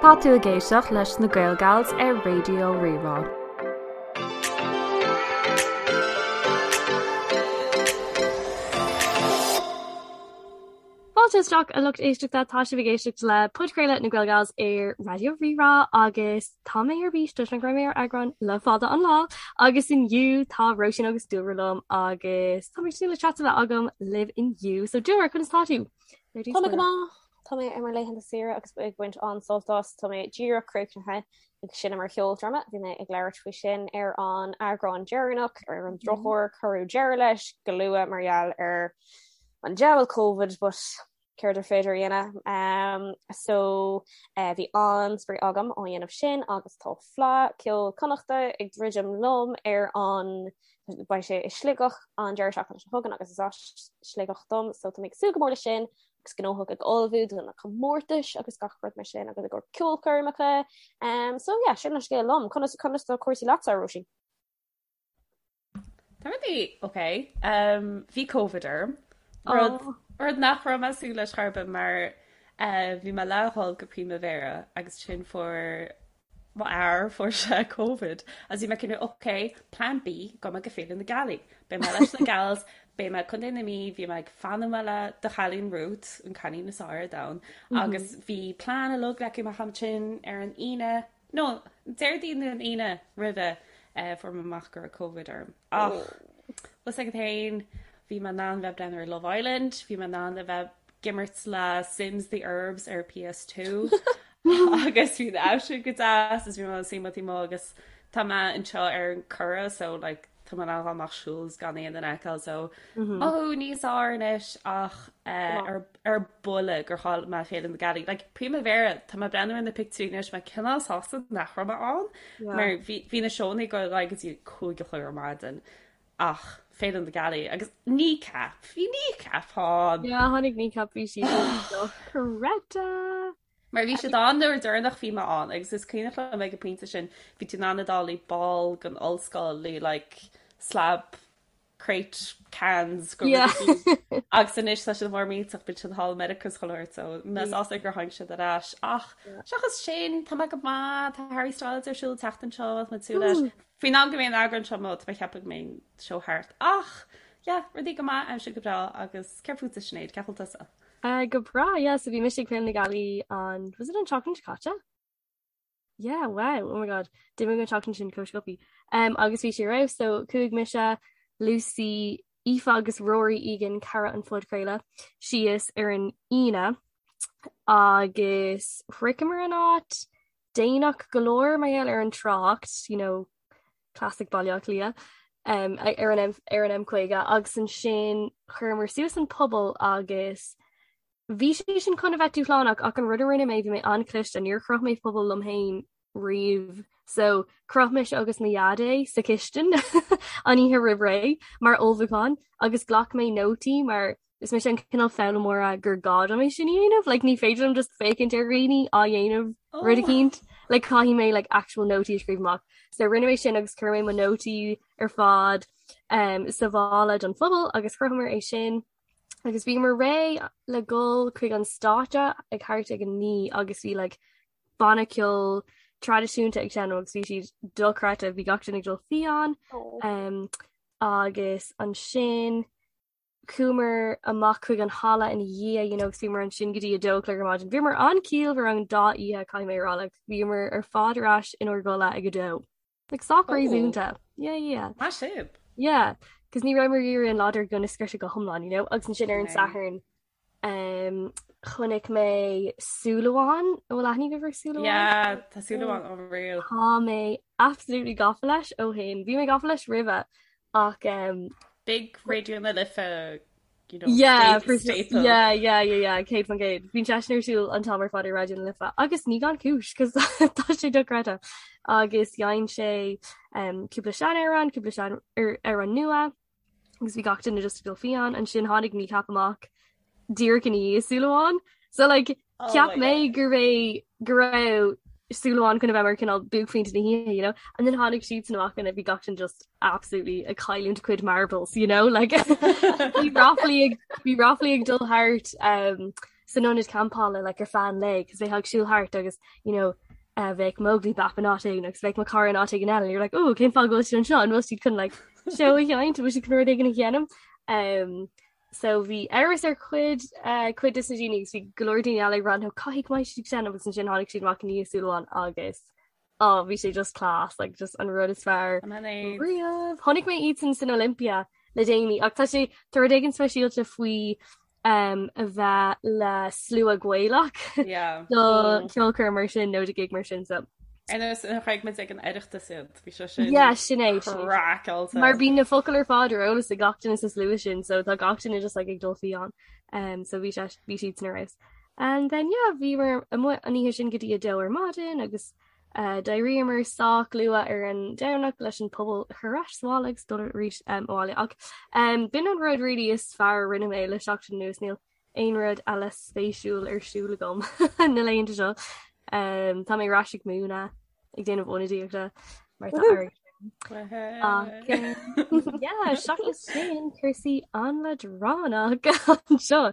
Tá tú ag éisteacht leis na Gael Gals ar Raidió Rí-Rá. Fáilte isteach a lucht éisteachta, tá sibh ag éisteacht le podchraoladh na Gael Gals ar Raidió Rí-Rá agus tá mé ar bís toisc nach raibh mé ar eagrán le fada an lá agus inniu tá Róisín agus Dúlra liom agus tá mé ag súil le chat a bheith agam libh inniu. So Dúlra, conas tá tú? Tá mé go maith. Tá mé ar mo laethanta saoire agus ag baint an-sult as. Tá mé díreach críochnaithe ag seinm ar cheoldráma. Bhí mé ag labhairt faoi sin ar an eagrán deireanach. Ar an drochuair cuireadh deireadh leis go luath mar gheall ar an diabhal Covid but céard ar féidir a dhéanamh. Um, so uh, bhí an-spraoi agam á dhéanamh sin agus tá Fleadh Ceoil Connachta ag druidim liom ar an beidh sé i Sligeach an deireadh seachtaine seo chugainn agus is as Sligeach dom so tá mé ag súil go mór leis sin agus gnóthach ag ullmhú do na comórtais agus gach rud mar sin agus i gcomhair ceolchoirmeacha. Um, so yeah, sin an scéal liom. Conas conas tá cúrsaí leatsa, Róisín? Tá rudaí ok. Um, bhí Covid orm. Rud, oh. rud nach raibh mé ag súil leis chor ar bith mar uh, bhí mé le dhul go Primavera agus ansin fuair Mo fhear, fuair sé Covid agus bhí mé cineál ok, plan B, gabhfaidh mé go Féile na Gealaí. Beidh mé leis na gals, beidh mé i Contae na Mí, bhí mé ag fanúint le do chailín Ruth, an cailín is fearr ar domhan, agus bhí plean uilig leagtha amach ansin ar an Aoine, no, Déardaoin nó an Aoine roimhe, fuair mé amach go raibh Covid orm. Ach, bhfuil fhios agat féin, bhí mé in ann bheith ag breathnú ar Love Island, bhí mé in ann a bheith ag imirt le Sims The Urbz ar PS2 agus bhí an aimsir go deas is bhí mé suí taobh amuigh agus tá mé anseo ar an Curragh so like tá mé in ann dul amach siúl is gan aon duine a fheiceáil so mothú níos fearr anois ach eh, ar ar buile gur chaill mé Féile na Gealaí. Like Primavera tá mé ag breathnú ar na pictiúirí anois mé cineál sásta nach raibh mé ann mar bhí bhí na seónna ag dul ar aghaidh go dtí 5 a chlog ar maidin ach Féile na Gealaí agus Kneecap bhí Kneecap ann. Yeah, tháinig Kneecap bhí siad dochreidte. Mar bhí siad ann nuair deireanach bhí mé ann agus is cuimhneach liom ag an pointe sin bhí tú in ann a dul i ball den ollscoil le like slab crate cans go Yeah. agus anois tá siad mór millteach bíonn siad thall i Meiriceá is chuile shórt so mé sásta gur tháinig siad ar ais ach seachas sin tá mé go maith tá Harry Styles ar siúl an tseachtain seo tá mé ag súil leis. Faoin am go mbeidh an eagrán seo amuigh tá mé ag ceapadh go mbeidh an seó thart ach yeah rudaí go maith aimsir go breá agus céard fútsa Sinéad cén chaoi a bhfuil tusa? Uh, go breá, yeah, so bhí mise ag Féile na Gealaí an was it an tseachtain seo caite? Yeah, wow, oh my god, d'imigh an tseachtain sin chomh sciobtha. Um, agus bhí sé ar fheabhas, so chuaigh mise, Lucy, Aoife agus Rory Egan, cara an phodchraoladh, síos ar an Aoine agus shroicheamar an áit déanach go leor mar gheall ar an trácht, you know, classic Baile Átha Cliath, um, ar an M, ar an M50 agus ansin chuireamar suas an puball agus Bhí sé sin chun a bheith dúshlánach ach an rud a rinne mé bhí mé an-chliste, níor chroch mé puball liom féin riamh so chroch mise agus mo dhaid é sa chistin an oíche roimh ré mar ullmhúchán agus ghlac mé nótaí mar is mise an cineál foghlaimeora gur gá dom é sin a dhéanamh like ní féidir liom just féachaint ar dhaoine á dhéanamh oh. rud eicínt like caithfidh mé like actual nótaí a scríobh amach so rinne mé sin agus chuir mé mo nótaí ar fad um, sa mhála don phuball agus chrochamar é sin agus bhíomar réidh le dhul chuig an stáitse ag thart ag a 9 agus bhí like banna ceoil traidisiúnta ag seinm agus bhí siad dochreidte bhí gach duine ag dul fiáin oh. um, agus ansin chuamar amach chuig an halla ina dhiaidh you know, agus bhíomar ansin go dtí a dó a chlog ar maidin. Bhíomar an-chiallmhar an dá oíche caithfidh mé a rá like, bhíomar ar fad ar ais inár gcodladh ag a dó. Like sách réasúnta. Yeah, yeah. Maith sibh. Yeah, cos ní rabhamar ag iarraidh an lá dár gcionn a scriosadh go hiomlán, you know, agus ansin ar an Satharn um, chonaic mé Súil Amháin, an bhfuil aithne agaibh ar Súil Amháin? Yeah, tá Súil Amháin unreal. Tá mé absolutely gafa leis ó shin. Bhí mé gafa leis roimhe ach um, Big Raidió na Life you know, yeah, for staple. Yeah, yeah, yeah, yeah, 100%. Bíonn seisean ar siúl an t-am ar fad ar Raidió na Life agus ní gan cúis cos tá sé dochreidte. Agus dhein sé um, cúpla seanamhrán, cúpla sean amhrán nua agus bhí gach duine just ag dul fiáin ansin tháinig Kneecap amach díreach ina dhiaidh Súil Amháin. So like Oh Cheap mé go raibh go raibh Súil Amháin chun a bheith mar cineál buaicphointe na hoíche, you know? And then tháinig siadsan amach and bhí gach duine just absolutely ag cailliúint a cuid marbles, you know? Like bhí ráflaí ag bhí ráflaí ag dul thart um, san ionad campála like ar feadh an lae cos bheifeá ag siúl thart agus you know uh, bheadh Móglaí Bap in áit éigin agus bheadh mo chara in áit éigin eile and you're like oh cén fáth go bhfuil siad anseo an bhfuil siad chun like seó a sheinnt bhfuil siad chun rud éigin a dhéanamh um, so bhí amhras ar chuid uh, cuid de na daoine agus bhí go leor daoine eile ag rá no caithfidh go mbeidh siad ag seinm agus ansin tháinig siad amach i ndiaidh súil amháin agus oh bhí sé just class like just an rud is fearr riamh. Chonaic mé iadsan san Olympia le déanaí ach tá sé tá rud éigin speisialta faoi um, a bheith le slua Gaelach Yeah. do ceolchoirm mar sin nó do gig mar sin so. Ar nós nuair a chonaic muid ag an Oireachtas iad, bhí sé sin Yeah, sin é, sin é. craiceáilte. Mar bíonn na focail ar fad ar eolas ag gach duine sa slua sin so tá gach duine just like ag dul fiáin. Um, so bhí sé bhí siad san ar fheabhas. And then yeah, bhíomar amuigh an oíche sin go dtí a dó ar maidin agus uh, d'éiríomar sách luath ar an Domhnach leis an puball a chur ar ais sa bhaile agus dul arís um, abhaile. Ach um, b'in an rud really is fearr a rinne mé le seachtain anuas níl aon rud eile spéisiúil ar siúl agam na laethanta seo. Um, tá mé ar ais ag múineadh ag déanamh ionadaíochta mar tá air. Ach, um, yeah, seachas sin cúrsaí an-leadránach anseo.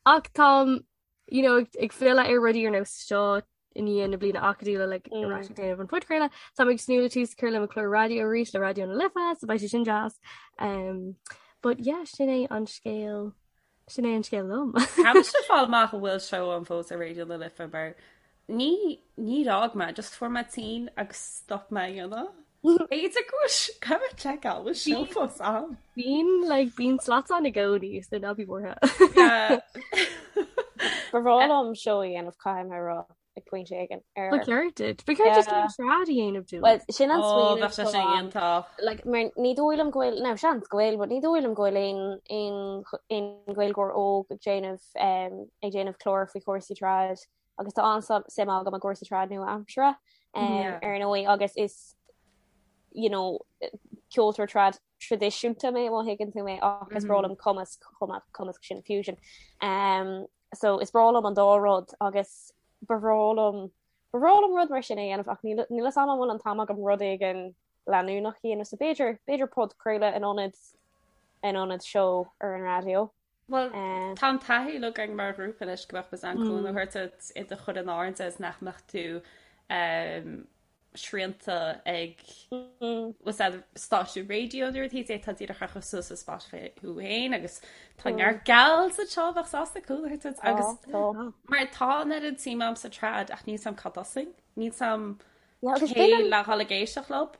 Ach táim you know, ag filleadh ar rudaí ar nós seo i ndiaidh na bliana acadúla like, mm. ar ais ag déanamh an phodchraoladh. Táim ag tnúth le tús a chur le mo chlár raidió arís le Raidió na Life, so beidh sé sin deas. Um, but yeah, sin é an scéal sin é an scéal liom. Caithfidh mé fáil amach an bhfuil seó ann fós ar Raidió na Life mar Ní, níor fhág mé, just fuair mé tinn agus stop mé a dhéanamh. B'fhéidir go bhfuil, caithfidh mé seiceáil, bhfuil seó fós ann? Bíonn, like, bíonn slots ann i gcónaí, so ná bí buartha. Ba bhreá liom seó a dhéanamh, caithfidh mé a rá, ag pointe éigin. Ar... Ba cheart duit. Ba cheart duit céim trad a dhéanamh dúinn. Well, sin an Ó, smaoineamh bheadh sé sin atá ann. iontach. Like, mar ní dóigh liom go bhfuil, now seans go bhfuil, but ní dóigh liom go bhfuil aon, aon, aon Ghaeilgeoir óg ag déanamh, um, ag déanamh clár faoi chúrsaí trad agus tá an-suim agam i gcúrsaí trad nua-aimseartha, um, Yeah. ar ndóigh agus is, you know, ceoltóir trad traidisiúnta mé má thuigeann tú mé ach is breá liom cumasc chomh maith cumasc sin fusion. Um, so is breá liom an dá rud agus ba bhreá liom ba bhreá liom rud mar sin a dhéanamh ach níl níl a fhios agam an bhfuil an t-am agam rud éigin leanúnach a dhéanamh so b'fhéidir b'fhéidir podchraoladh in ionad in ionad seó ar an raidió. Bhuel Eh. tá an taithí uilig againn mar ghrúpa anois go mbeadh muid in ann cúnamh a thabhairt duit i do chur in airde is nach mbeadh tú um, srianta ag stáisiún raidió nó rud tá díreach a chur suas ar Spotify thú féin agus tá neart gals anseo a bheadh sásta cúnamh a thabhairt duit agus mar tá an oiread suim agam sa trad ach níl 's a'm cá dtosóinn níl 's a'm cé le dhul ag éisteacht leo.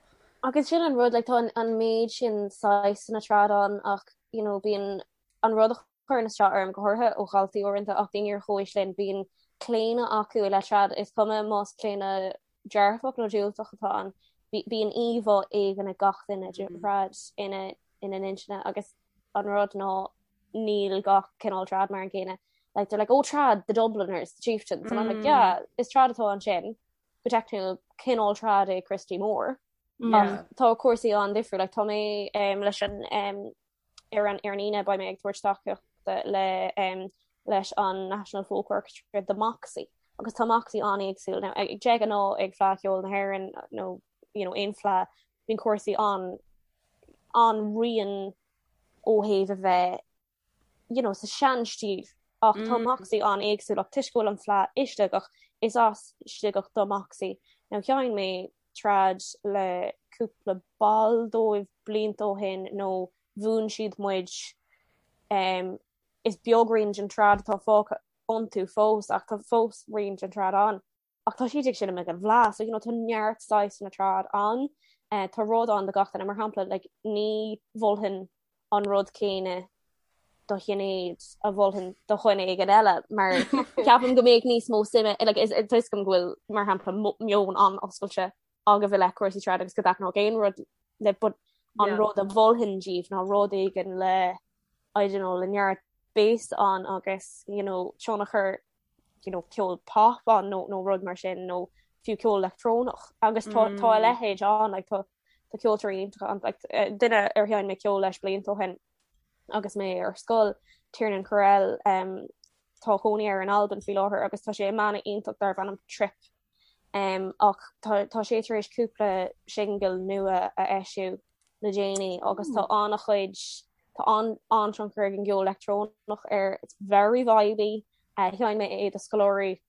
Agus sin an rud like tá an méid sin saghsanna trad ann ach you know bíonn an rud a chuireann isteach orm, go háirithe ó dhaltaí uaireanta ach daoine ar chomhaois linn, bíonn claonadh acu i leith trad, is cuma más claonadh dearfach nó diúltach atá ann, bíonn íomhá éigin ag gach duine de thrad ina ina n-intinne agus an rud ná níl gach cineál trad mar an gcéanna. Like they're like, oh trad, the Dubliners, the Chieftains, and I'm like, yeah, is trad atá ansin, go teicniúil cineál trad é Christy Moore. Ach tá cúrsaí an-difriúil, like tá mé um, leis an um, Ar an ar an Aoine beidh mé ag tabhairt tacaíochta le leis an National Folk Orchestra do Moxie agus tá Moxie an-éagsúil. Now ag de ghnáth ag Fleadh Cheoil na hÉireann nó you know aon fleadh bíonn cúrsaí an an-righin ó thaobh a bheith you know sa sean-stíl ach tá Moxie an-éagsúil ach toisc go bhfuil an fleadh i Sligeach is as Sligeach do Moxie. Now sheinn mé trad le cúpla ball dóibh blianta ó shin nó mhúin siad muid is beag rian den trad atá fágtha iontu fós ach tá fós rian den trad ann ach tá siad ag seinm ag an bhFleadh so you know tá neart saghsanna trad ann tá rud ann do gach duine mar shampla like ní mholfainn an rud céanna do Shinéad a mholfainn do dhuine éigin eile mar ceapaim go mbeadh níos mó suime like is tá a fhios agam go bhfuil mar shampla meon an-oscailte agaibh i leith cúrsaí trad agus go dtaitneodh aon rud libh but an rud a mholfainn díbh ná rud éigin le I don't know le neart bass ann agus you know tionchar you know ceol pop ann nó nó rud mar sin nó fiú ceol leictreonach agus tá tá a leithéid ann like tá tá ceoltóirí iontacha ann like duine ar sheinn mé ceol leis blianta ó shin agus mé ar scoil Tiernan Correll um, tá cónaí air in Albain faoi láthair agus tá sé i mbanna iontach darb ainm Trip um, ach tá, tá sé tar éis cúpla singil nua a eisiú le déanaí agus tá an-chuid tá an an-tionchar ag an gceol leictreonach air it's very vibey. Sheinn mé é do scoláirí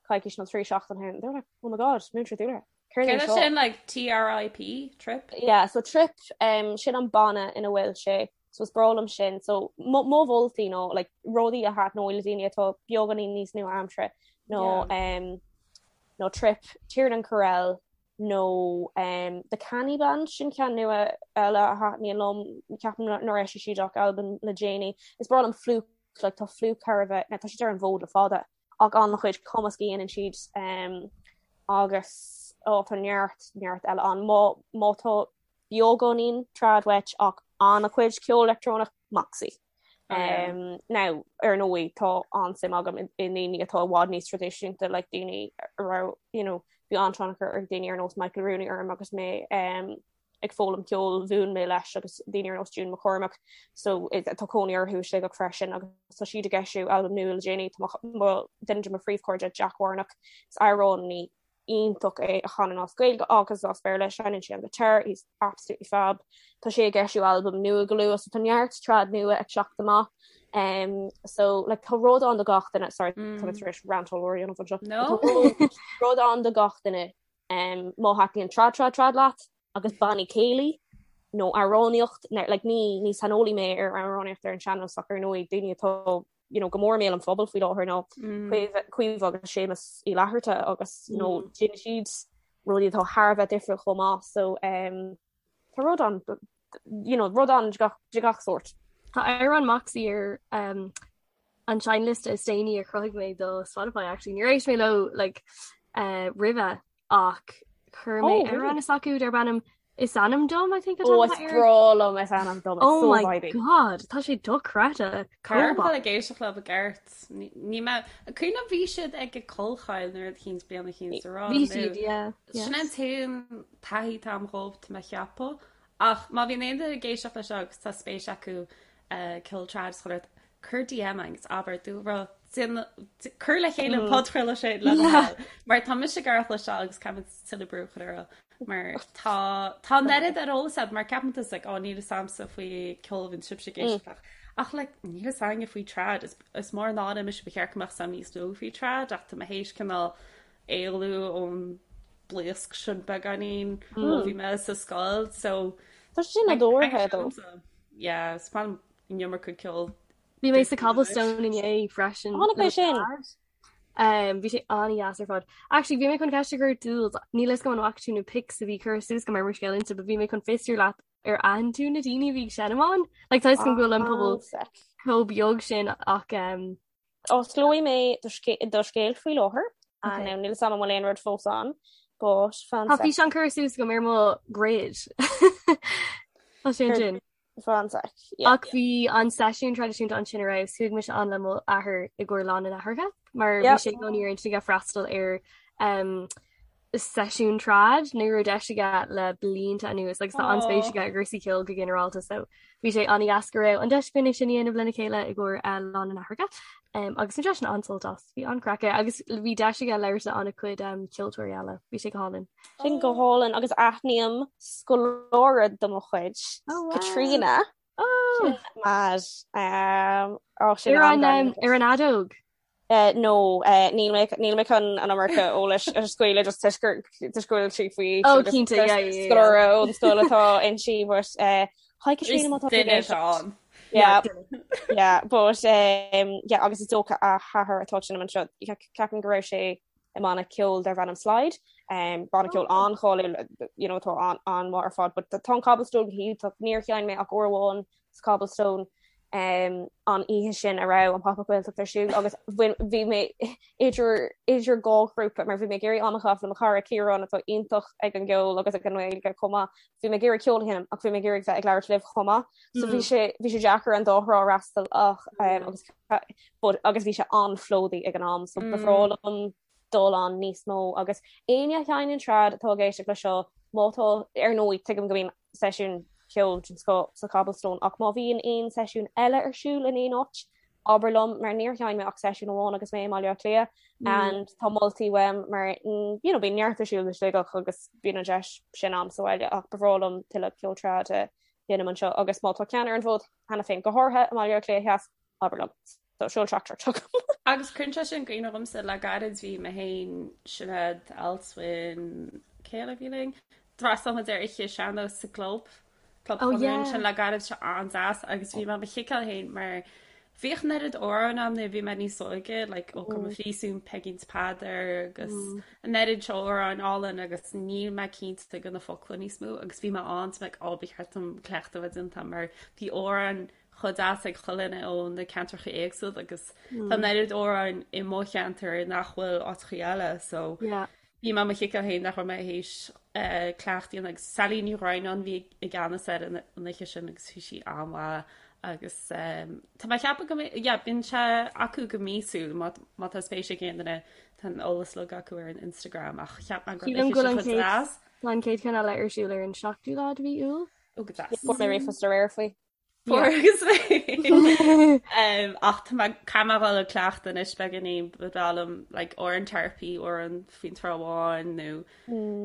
coicís nó 3 seachtain ó shin. They were like, oh my god, Múinteoir Dúlra. Céard é sin like TRIP, trip? Yeah, so trip, um, sin an banna ina bhfuil sé, so is breá liom sin. So mo mholtaí nó like rudaí a thaitneoidh le daoine atá beagáinín níos nua-aimseartha nó yeah. um, nó trip, Tiernan Correll nó um, The Canny Band sin ceann nua eile a thaitníonn liom ceapaim nár eisigh siad ach albam le déanaí. Is breá liom Flook like tá Flook thar a bheith, tá siad ar an bhfód le fada ach an-chuid cumasc a dhéanann siad um, agus ó tá neart neart eile ann má má tá beagáinín trad uait ach an-chuid ceol leictreonach Moxie. Um, now ar ndóigh tá an-suim agam i ndaoine atá i bhfad níos traidisiúnta like daoine a raibh you know, bhí an-tionchar ag daoine ar nós Michael Rooney orm agus mé um, ag foghlaim ceoil mhúin mé leis agus daoine ar nós June McCormack so tá cónaí orthu i Sligeach freisin agus tá siad ag eisiú albam nua le déanaí tá duine de mo phríomhchairde Jack Warnock is amhránaí iontach é a chanann as Gaeilge agus as Béarla seinneann sé an guitar he's absolutely fab tá sé ag eisiú albam nua go luath so tá neart trad nua ag teacht amach um, so like tá rud ann do gach duine sorry mm. tá tar éis rant ollmhór a dhéanamh anseo no rud ann do gach duine Um, má thaitníonn trad trad trad leat agus bannaí céilí nó amhránaíocht, like, ní, ní saineolaí mé ar amhránaíocht ar an sean-nós ach ar ndóigh daoine atá you know, go mór i mbéal an phobail faoi láthair ná mm. Caoimhe agus Séamus Uí Fhlatharta agus you know, mm. déanann siad rudaí atá thar a bheith difriúil chomh maith so um, tá rud ann you know, rud ann de gach, de gach sórt. Tá amhrán Moxie ar um, an seinnliosta is déanaí a chruthaigh mé do Spotify actually. Níor éist mé leo like, uh, roimhe ach chuir mé oh, amhrán s'acu darb ainm Is ainm dom I think oh, is breá liom is ainm dom oh so my god tá sé dochreidte Caithfidh mé ag éisteacht leo i gceart ní mé cuimhin bhí siad ag Collchoill nuair a chinn bliana chinn sa rá Bhí siad yeah Sin an t-aon taithí atá agam dhóibh tá mé a cheapadh ach má bhíonn aon duine ag éisteacht leis seo agus tá spéis acu ceol trad is chuile cuir DM agus abair dúlra cuir le chéile an podchraoladh sin le do thoil mar tá mise ag iarraidh cloisteáil agus caithfimid tuilleadh brú a chur orthu mar tá tá an oiread ar eolas agat mar ceapann tú like ó níl fhios a'msa faoi ceol a bhíonn sibhse ag éisteacht leis ach like níl fhios againne faoi trad is is mór an náire mise ba cheart go mbeadh fhios a'm níos mó faoi trad ach tá mé théis cineál éalú ón blaosc sin beagáinín ó bhí mé sa scoil so Tá sé sin nádúrtha though. Yeah, is maith liom an iomarca ceoil. Bhí mé sa Cobblestone inné freisin. Chonaic mé sin. Um, bhí sé an-dheas ar fad. Actually, bhí mé chun ceist a chur Jules, níl fhios agam an bhfaca tú na pics a bhí curtha suas agam ar mo scéal Insta, but bhí mé chun fiosrú leat ar aithin tú na daoine a bhí ag seinm ann. Like, tá fhios agam go bhfuil an pobal chomh beag sin ach um, Osclóidh mé do scéal faoi láthair. Okay. Now, níl fhios agam an bhfuil aon rud fós ann, but fan Tá físeán curtha suas agam ar mo grid. Tá sé ansin. Fan sec. Ach bhí an seisiún traidisiúnta ansin ar fheabhas, chuaigh mise ann le mo athair i gcomhair Lá na nAithreacha, mar bhí sé i gcónaí ar intinn aige freastal ar um, seisiún trad ní raibh deis aige le blianta anuas agus tá an-spéis aige i gcúrsaí ceoil go ginearálta so bhí sé an-dheas go raibh an deis againn é sin a dhéanamh lena chéile i gcomhair uh, Lá na nAithreacha um, agus bhain seisean an-sult as bhí an-craic aige agus bhí deis aige labhairt le an-chuid um, ceoltóirí eile bhí sé go hálainn. Sin go hálainn agus aithním scoláire de mo chuid oh, wow. Katrina oh. Mad um, oh, sin ar an, um, ar an fheadóg. Uh, no, uh, níl mé níl mé chun an iomarca eolais a scaoileadh just toisc gur toisc go bhfuil sí faoi Oh, cinnte, yeah, yeah, yeah. scoláire ón scoil atá inti but uh, hi Katrina má tá tú ag Duine éisteacht. ann. Yeah, yeah, but um, yeah, agus is dócha a hathair atá ag seinm anseo ceapaim go raibh sé i mbanna ceoil darb ainm Slide, um, banna ceoil an-cháiliúil you know, atá an an-mhaith ar fad, but tá an Cobblestone go hiontach, níor sheinn mé ach uair amháin sa Cobblestone um, an oíche sin a raibh an Pop-Up Gaeltacht ar siúl agus bhí mé idir idir dhá ghrúpa mar bhí mé ag iarraidh am a chaitheamh le mo chara Ciarán atá iontach ag an gceol agus ag an nGaeilge chomh maith. Bhí mé ag iarraidh ceol a sheinm ach bhí mé ag iarraidh bheith ag labhairt libh chomh maith. So bhí mm. sé bhí sé deacair an dá thrá a fhreastal ach um, agus but agus bhí sé an-phlódaithe ag an am so ba bhreá mm. liom dul ann níos mó agus éinne a sheinneann trad atá ag éisteacht le seo má tá ar ndóigh tuigim go mbíonn seisiún ceoil den scoth sa Cobblestone ach má bhíonn aon seisiún eile ar siúl in aon áit abair liom mar níor sheinn mé ach seisiún amháin agus mé i mBaile Átha Cliath mm. and tá moltaí uaim mar mm, you know, bíonn neart ar siúl i Sligeach agus bíonn an deis sin a'm sa bhaile ach ba bhreá liom tuilleadh ceol trad a sheinm anseo agus má tá ceann ar an bhfód cheana féin go háirithe i mBaile Átha Cliath Theas abair liom. So seol teachtaireacht chugam. Agus cuireann sé sin i gcuimhne dhomsa le gairid bhí mé féin, Sinéad, Alswyn, cé eile a bhí linn? D'fhreastail muid ar oíche sean-nós sa gclub, Club Oh Chonradh yeah. ansin le gairid sé an-deas agus bhí mé mo chiceáil féin mar bhíodh an oiread amhrán ann nuair a bhí mé níos óige like Ó Come Phríosún, Peigín 's Peadar agus an oiread seo amhráin álainn agus níl mé cinnte de na focla níos mó agus bhí mé ann so like ó ba cheart dom cleachtadh a bheith déanta mar bhí amhráin chomh deas ag chuile dhuine ó na ceantracha éagsúla agus tá an oiread amhráin i mo cheantar nach bhfuil áiteachaí eile so Yeah. bhí mé mo chiceáil féin nach raibh mé théis cleachtadh a dhéanamh agus Sally Ní Dhroighneáin bhí i gceannas ar an oíche sin agus bhí sí an-mhaith agus tá mé ag ceapadh go mbeidh yeah bíonn sé acu go míosúil má má tá spéis ag aon duine tá an eolas uilig acu ar an Instagram ach cheap mé go raibh Sílim an go oíche bhfuil sin an chomh chéad deas. tá an chéad cheann eile ar siúl ar an 7ú lá de mhí Iúil. Ó go deas. Fuair mé ríomhphost aréir faoi. Fuair agus mé. Ach tá mé caithfidh mé dhul ag cleachtadh anois beagáinín ba bhreá liom like amhrán Tarpey amhrán faoin Trá Bháin nó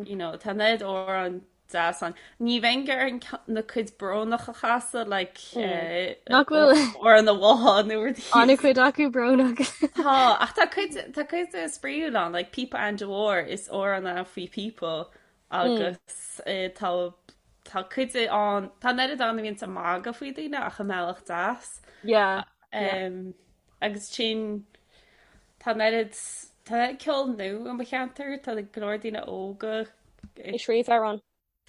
you know tá an oiread amhrán deas ann. Ní bheinn ag iarraidh na cuid brónach a chasadh like Nach bhfuil amhrán an bhá nó rudaí. An-chuid acu brónach. Tá ach tá cuid tá cuid spraíúil ann like Píopa Aindí Mhóir is amhrán é faoi phíopa Agus tá tá cuid ann, tá an oiread ann a bhíonns ag magadh faoi daoine ach i mbealach deas. Yeah, yeah. Agus sin, tá an oiread, tá an oiread ceol nua i mo cheantar, tá go leor daoine óga ag scríobh amhrán.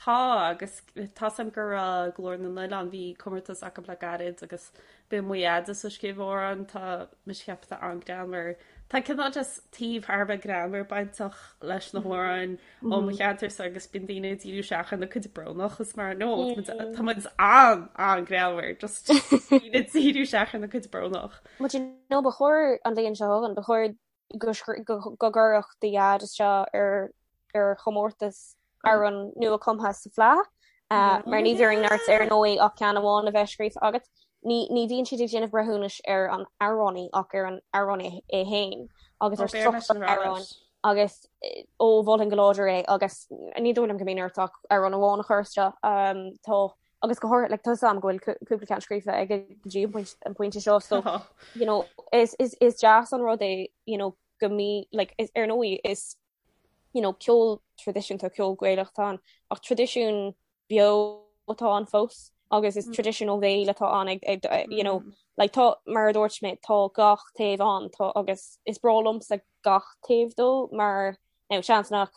Tá, agus tá's a'm go raibh Glór na nOileán, bhí comórtas acu le gairid agus bhí mo dheaide ag scríobh amhrán, tá mise ag ceapadh tá an-greannmhar. Tá cineál just taobh thar a bheith greannmhar bainteach leis na hamhráin ó mo cheantarsa agus bíonn daoine ag díriú isteach ar na cuid brónach is mar no tá muid an an-greannmhar just daoine ag díriú isteach ar na cuid brónach. But you know ba chóir an bhliain seo chugainn, ba chóir go go gcuirfeadh do dhaid isteach ar ar chomórtas amhrán nua cumtha sa Fleadh mar ní bhíonn ort ar ndóigh ach ceann amháin a bheith scríofa agat. Ní ní bhíonn siad ag déanamh breithiúnais ar an amhránaí ach ar an amhránaí é féin agus ar struchtúr an amhráin agus ó mholfainn go láidir é agus ní dóigh liom go mbíonn ort ach amhrán amháin a chur isteach. Tá agus go háirithe like, tá 'fhios a'm go bhfuil cúpla ceann scríofa aige go dtí an pointe seo so you know, is, is, is deas an rud é you know, go mí like, is, ar ndóigh is you know, ceol traidisiúnta, ceol Gaelach atá ann, ach traidisiún beo atá ann fós agus is traidisiún ó bhéal atá ann ag, ag, you know, like tá, mar a dúirt mé, tá gach taobh ann, tá agus is breá liomsa gach taobh dó mar, now, seans nach,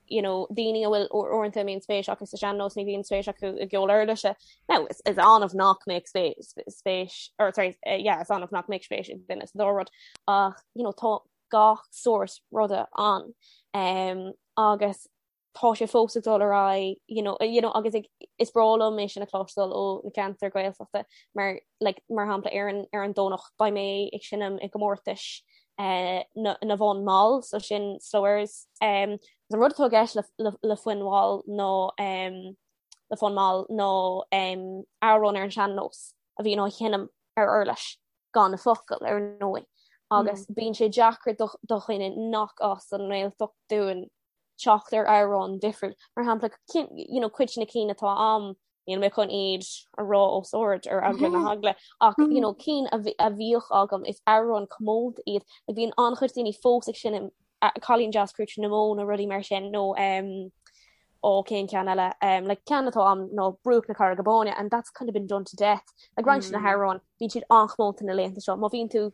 you know, daoine a bhfuil uaireanta a mbíonn spéis acu sa sean-nós ní bhíonn spéis acu i gceol uirlise. Now, is, is annamh nach mbeadh spéis, spéis, or sorry, eh, yeah, is annamh nach mbeadh spéis ag duine sa dá rud ach, you know, tá gach sórt ruda ann um, agus tá sé fós ag dul ar aghaidh you know, you know, agus ag, is breá liom é sin a chloisteáil ó na ceantair Gaeltachta mar like, mar shampla ar an, ar an Domhnach beidh mé ag seinm i gcomórtais uh, na, na bhfonn mall so sin slow airs um, an rud atá i gceist le, le, le foinn mhall nó um, le fonn mall ná um, amhrán ar an sean-nós a bhíonn á sheinm ar uirlis. gan na focail, ar ndóigh, agus bíonn sé deacair do dhuine nach as an nGaeltacht dúinn teacht ar amhrán difriúil. Mar shampla, you know, cuid de na cinn atá a'm, níl mé chun iad a rá os ard ar eagla na heagla, ach you know, cinn a bhíodh agam is amhráin comónta iad. Like, bíonn an-chuid daoine fós ag seinm Cailín Deas Crúite na Mó nó rudaí mar sin nó um, ó cén ceann eile um, like, ceann atá a'm ná Bruach na Carraige Báine and that's kind of been done to death. Like, roinnt de na hamhráin bíonn siad an-chomónta na laethanta seo. Má bhíonn tú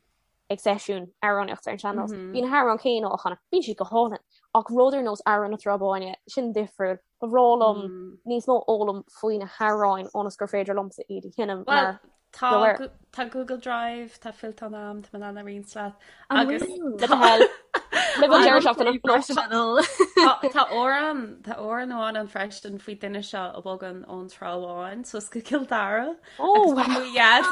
ag seisiún amhránaíochta ar an sean-nós, mm -hmm. bíonn na hamhráin céanna á chanadh, bíonn siad go hálainn. Ach rud ar nós Amhrán na Trá Báine, sin difriúil. Ba bhreá liom mm. níos mó fhoghlaim faoi na hamhráin ionas gur féidir liomsa iad a sheinm mar Tá Tá Google Drive, tá fillteán a'm, tá mé in ann a roinnt leat. Agus Tá amhrán tá amhrán amháin ann freisin faoi duine seo a bhogann ón Trá Bháin suas go Cill Dara. Agus tá mo dhaid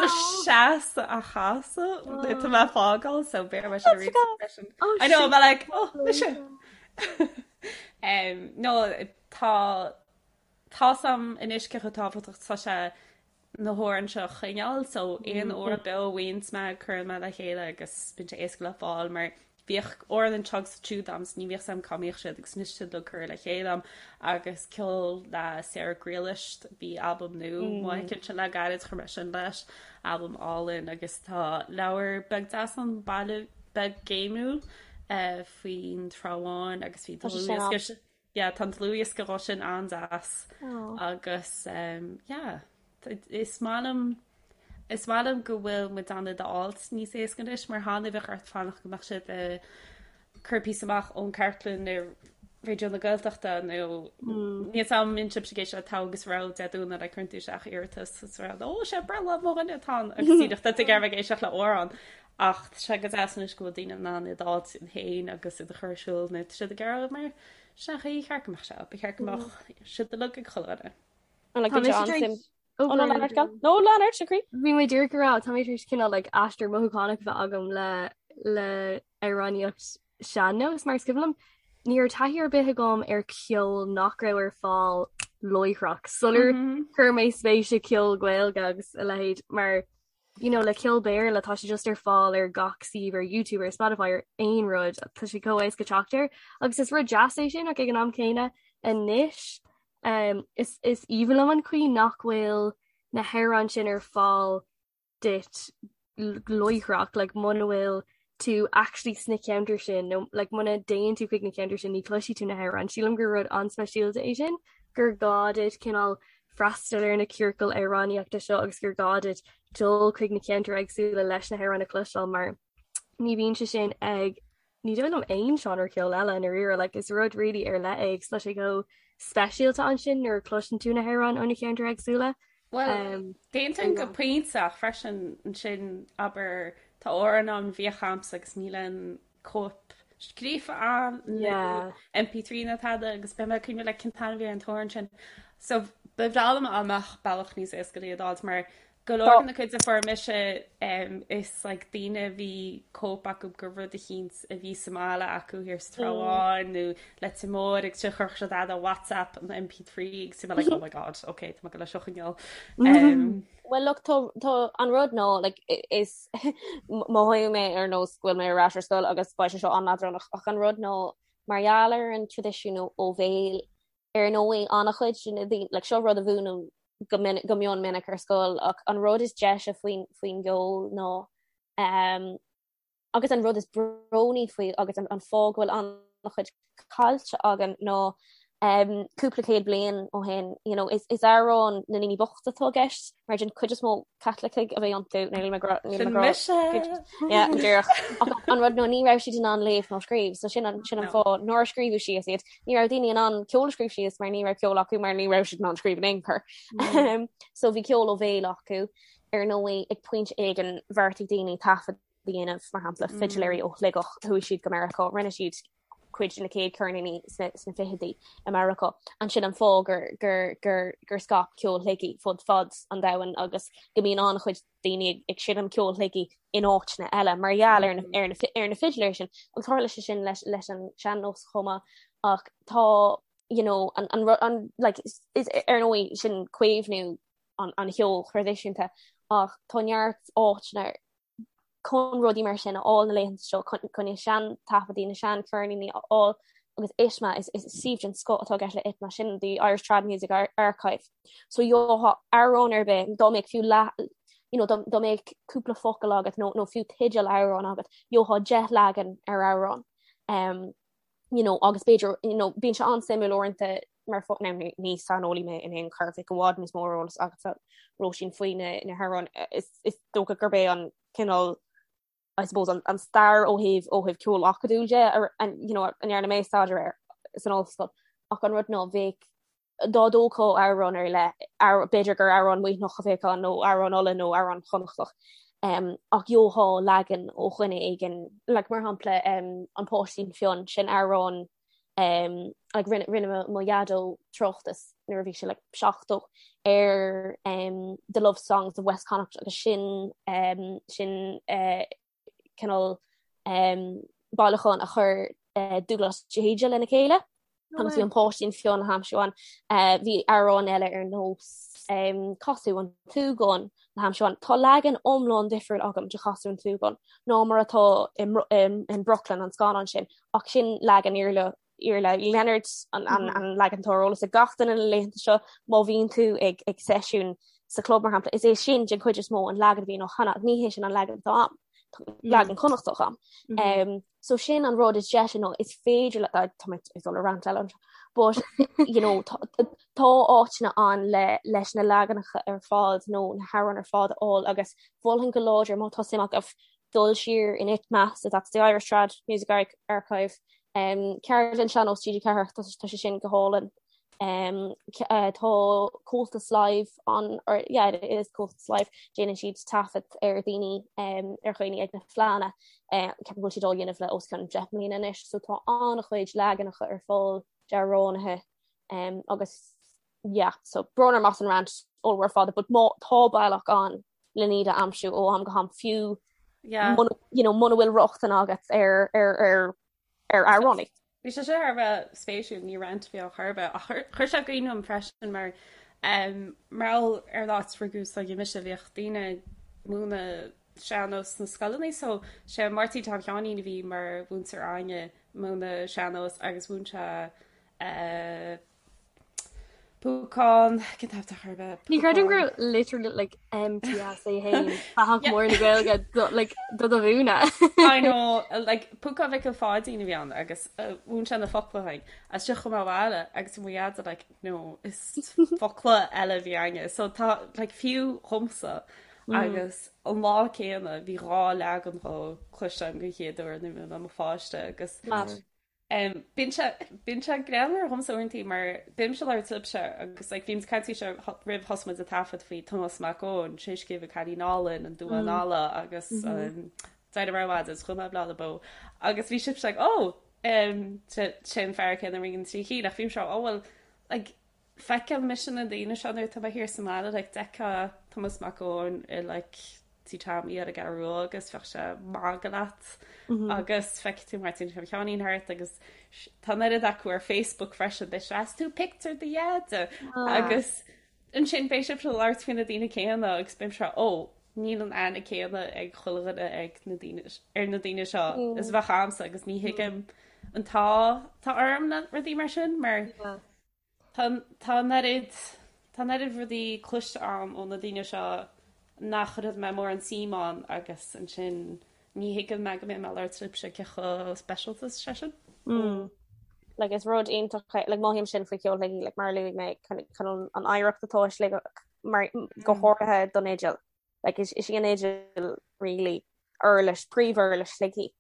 seasta á chasadh tá mé ag fágáil so b'fhéidir mé sin a roinnt freisin. I know, I'm like, oh, mise. Um, no, tá tá's a'm anois cé chomh tábhachtach tá sé na hamhráin seo a choinneáil so aon amhrán beo a bhfaigheanns mé cuireann mé le chéile agus bíonn sé éasca le fáil mar bhíodh amhrán anseo agus ansiúd a'm so ní bhíodh 's a'm cá mbíodh siad agus anois tá siad uilig curtha le chéile a'm agus ceol le Sarah Ghriallais bhí albam nua amuigh aici ansin le gairid chuir mé sin leis albam álainn agus tá leabhar beag deas ann baile. beag géimiúil faoin Trá Bháin agus bhí dlúthdhiosca yeah tá an dlúthdhiosca dhó sin an-deas agus yeah is maith liom is maith liom go bhfuil muid in ann iad a fháilt níos éasca anois mar cheana bheadh ort fanacht go mbeadh siad ag cur píosa amach ón chartlann ar Raidió na Gaeltachta nó níl a fhios agam an mbíonn sibhse ag éisteacht le Togha agus Rogha Dé Domhnaigh like cuireann tú isteach iarratas is rá ó sé breithlá mo dhuine atá ann agus díreach tá tú ag iarraidh bheith ag éisteacht le amhrán ach tá sé go deas anois go bhfuil daoine in ann iad a fháilt féin agus iad a chur ar siúl nó tá siad ag iarraidh mar sin an chaoi ar cheart go mbeadh sé ba cheart go mbeadh siad uilig ag chuile dhuine. An like Tá mise tar éis Ó no lean ort No lean ort a chroí. Bhí mé díreach ag rá tá mé tar éis cineál like aistear mothúchánach a bheith agam le le amhránaíocht sean-nós mar is cuimhin liom ní raibh taithí ar bith agam ar ceol nach raibh ar fáil láithreach sular chuir mé spéis i ceol Gaeilge agus a leithéid mar you know le ceol Béarla tá sé just ar fáil ar gach suíomh ar YouTube ar Spotify ar aon rud tá sé chomh éasca teacht air agus is rud deas é sin ach ag an am céanna anois um, is is aoibhinn liom an chaoi nach bhfuil na hamhráin sin ar fáil duit láithreach like muna bhfuil tú actually sna ceantair sin nó like muna dtéann tú chuig na ceantair sin ní chloisfidh tú na hamhráin. Sílim gur rud an-speisialta é sin gur gá duit cineál freastal ar na ciorcail amhránaíochta seo agus gur gá duit dul chuig na ceantair éagsúla leis na hamhráin a chloisteáil mar ní bhíonn sé sin ag ní dóigh liom aon seánra ceoil eile i ndáiríre like is rud really ar leith é agus tá sé chomh speisialta ansin nuair a chloiseann tú na hamhráin ó na ceantair éagsúla. Bhuel, um, d'aontóinn go pointe ach freisin ansin abair tá amhrán ann a bhíodh a'msa agus níl aon cóip scríofa ann nó MP3 ná tada agus beidh mé ag cuimhneamh like cén t-ainm a bhí ar an t-amhrán sin. So ba bhreá liom dá mbeadh bealach níos éasca le iad a fháilt mar Go leor de na cuid a fuair mise is like daoine a bhí cóip acu de rud eicínt a bhí sa mbaile acu thiar sa Trá Bháin nó Leitir Móir agus sin chuirfeadh siad ar WhatsApp an MP3 agus bhí mé like oh my god ok tá mé ag dul é seo a choinneáil. Well look tá tá an rud ná like is mothóidh mé ar nós go bhfuil mé ar ais ar scoil agus beidh sé seo an-leadránach ach an rud ná mar gheall ar an traidisiún ó bhéal Ar ndóigh, an-chuid de na daoine, like, seo rud a mhúinim go minic, go mion minic ar scoil, ach an rud is deise faoin, faoin gceol ná, um, agus an rud is brónaí faoi agus an, an fáth go bhfuil an-chuid caillte againn ná um, cúpla céad bliain ó shin, you know, is, is amhráin na ndaoine bochta atá i gceist, mar den chuid is mó Caitlicigh a bhí iontu, níl mé ag rá, níl mé ag rá, Sin mise! Yeah, go díreach. Ach an rud ná ní raibh siad in ann léamh ná scríobh, so sin an, sin an fáth nár scríobhadh síos iad. Ní raibh daoine in ann ceol a scríobh síos mar ní raibh ceol acu mar ní raibh siad in ann scríobh in aon chor. So bhí ceol ó bhéal acu. Ar ndóigh, ag pointe éigin bheartaigh daoine taifead a dhéanamh, mar shampla, fidiléirí ó Shligeach, chuaigh siad go Meiriceá, rinne siad cuid de na chéad ceirníní sna sna fichidí i Meiriceá. Ansin an fáth gur gur gur gur scaip ceol Shligigh fud fad an domhain agus go mbíonn an-chuid daoine ag ag seinm ceol Shligigh in áiteanna eile mar gheall ar na ar na ar na fidiléirí sin. Agus tharla sé sin leis leis an sean-nós chomh maith ach tá you know an an an like is is ar ndóigh sin caomhnú an an cheoil thraidisiúnta ach tá neart áiteanna chun rudaí mar sin a fháil na laethanta seo chun na sean-taifeadtaí, na sean-cheirníní a fháil agus ITMA, is is suíomh den scoth atá i gceist le ITMA, sin the Irish Trad Music Archive. So gheofá amhrán ar bith, dá mbeadh fiú leath, you know, dá mbeadh cúpla focal agat nó nó fiú teideal amhrán agat, gheofá 10 leagan ar amhrán. Um, you know, agus b'fhéidir, you know, bíonn sé an-suimiúil uaireanta mar fo now ní ní saineolaí mé in aon chor, bheadh i bhfad níos mó eolas agatsa Róisín faoi na na hamhráin. Is is dócha gurb é an cineál I suppose an an stair ó thaobh ó thaobh ceol acadúil de ar an you know, a ndearna mé staidéar air san ollscoil. Ach an rud ná bheadh dá dtógfá amhrán ar leith, b'fhéidir gur amhrán Muimhneach a bheadh ann nó amhrán Uladh nó amhrán Chonnachtach, ach gheofá leagan ó dhuine éigin, like mar shampla An Páistín Fionn, sin amhrán like rinne rinne mo dhaideo tráchtas nuair a bhí sé like 70 ar The Love Songs of West Connacht agus sin sin cineál bailiúchán a chuir Dubhghlas de hÍde lena chéile agus bhí an Páistín Fionn le haimsiú ann. Bhí amhráin eile ar nós Casadh an tSúgáin le haimsiú ann. Tá leagan iomlán difriúil agam de Chasadh an tSúgáin ná mar atá in Brooklyn, an scannán sin, ach sin leagan Iarla Iarla Uí Lionáird an leagan atá ar eolas ag gach duine na laethanta seo má bhíonn tú ag ag seisiún sa chlub mar shampla, is é sin den chuid is mó an leagan a bhíonn á chanadh, ní hé sin an leagan atá a'm. Leagan Connachtach a'm. Um, so sin an rud is deise nó is féidir le tá mé ag dul ar rant eile anseo, but you know, tá tá áiteanna ann le leis na leaganacha ar fad nó na hamhráin ar fad a fháil agus mholfainn go láidir má tá suim agaibh dul siar in ITMA, so that's the Irish Trad Music Archive, um, Ceardlann Sean-Nós TG4 tá tá sé sin go hálainn. Um, uh, tá Comhaltas Live an or yeah, it is Comhaltas Live déanann siad taifead ar daoine um, ar dhaoine ag na fleánna uh, ceapaim go bhfuil siad á dhéanamh le os cionn 10 mbliana anois, so tá an-chuid leaganacha ar fáil d'amhránaithe um, agus yeah, so brón orm as an rant ollmhór fada, but má tá bealach ann le iad a aimsiú ó am go ham fiú yeah. muna, you know, muna bhfuil rochtain agat ar ar ar ar amhránaí. Bhí sé seo thar a bheith spéisiúil, ní rant a bhí ann chor ar bith, ach chuir sé i gcuimhne dom freisin mar mar gheall ar an áit rugadh is tógadh mise, bhíodh daoine ag múineadh sean-nós sna scoileanna so sé Máirtín Tom Sheáinín a bhí mar mhúinteoir againne múineadh sean-nós agus mhúin sé Púcán, cén t-ainm atá chor ar bith? Ní chreidim go raibh literally like MTS é féin fathach mór na Gaeilge do like do do mhúineadh. I know, like Púcán Mhicil Pháidín a bhí ann agus mhúin sé na focla dúinn. As sin chuaigh mé abhaile agus mo dhaid like no is focla eile a bhí againne. So tá like fiú dhomsa agus an lá céanna bhí dhá leagan dhó cloiste agam den chéad uair nuair a bhí mé i mo pháiste agus Mad. Bíonn sé, bíonn sé greannmhar dhomsa uaireantaí mar bímse ag labhairt libhse agus like bhí muid ag caint faoi seo roimh thosaigh muid ag taifead faoi Tomás Mac Eoin, sé a scríobh An Cailín Álainn, An Duán Alla agus D'éirigh mé ar maidin is chuaigh mé Baile na Bó agus bhí sibhse like oh sé sé an fear céanna a rinne na trí cinn ach bhímse oh well like Feiceann mise na daoine seo nuair atá mé thiar sa mbaile, like d'fheicfeá Tomás Mac Eoin i like Tí Tommy ar an gCeathrú Rua agus bheadh sé ag magadh leat agus feicfidh tú Máirtín Tom Sheáinín thart agus tá an oiread acu ar Facebook freisin, beidh sé 'Is tú pictiúr do dheaide agus ansin beidh sibh ag labhairt faoi na daoine céanna agus bímse ó níl an aithne céanna ag chuile dhuine ag na daoine ar na daoine seo is a bheadh a'msa agus ní thuigim an t-ádh atá orm le rudaí mar sin mar Tá tá an oiread tá an oiread rudaí cloiste a'm ó na daoine seo nach raibh mé mórán suim ann agus ansin ní thuigeann mé go mbeidh mé ag labhairt libhse cé chomh speisialta is sé sin. Mm. Like is rud iontach é like mothaím sin faoi cheol Shligigh like mar a luaigh mé chun an oidhreacht atá i Sligeach mar go háirithe don fhidil. Like is is í an fhidil really uirlis, príomhuirlis Shligigh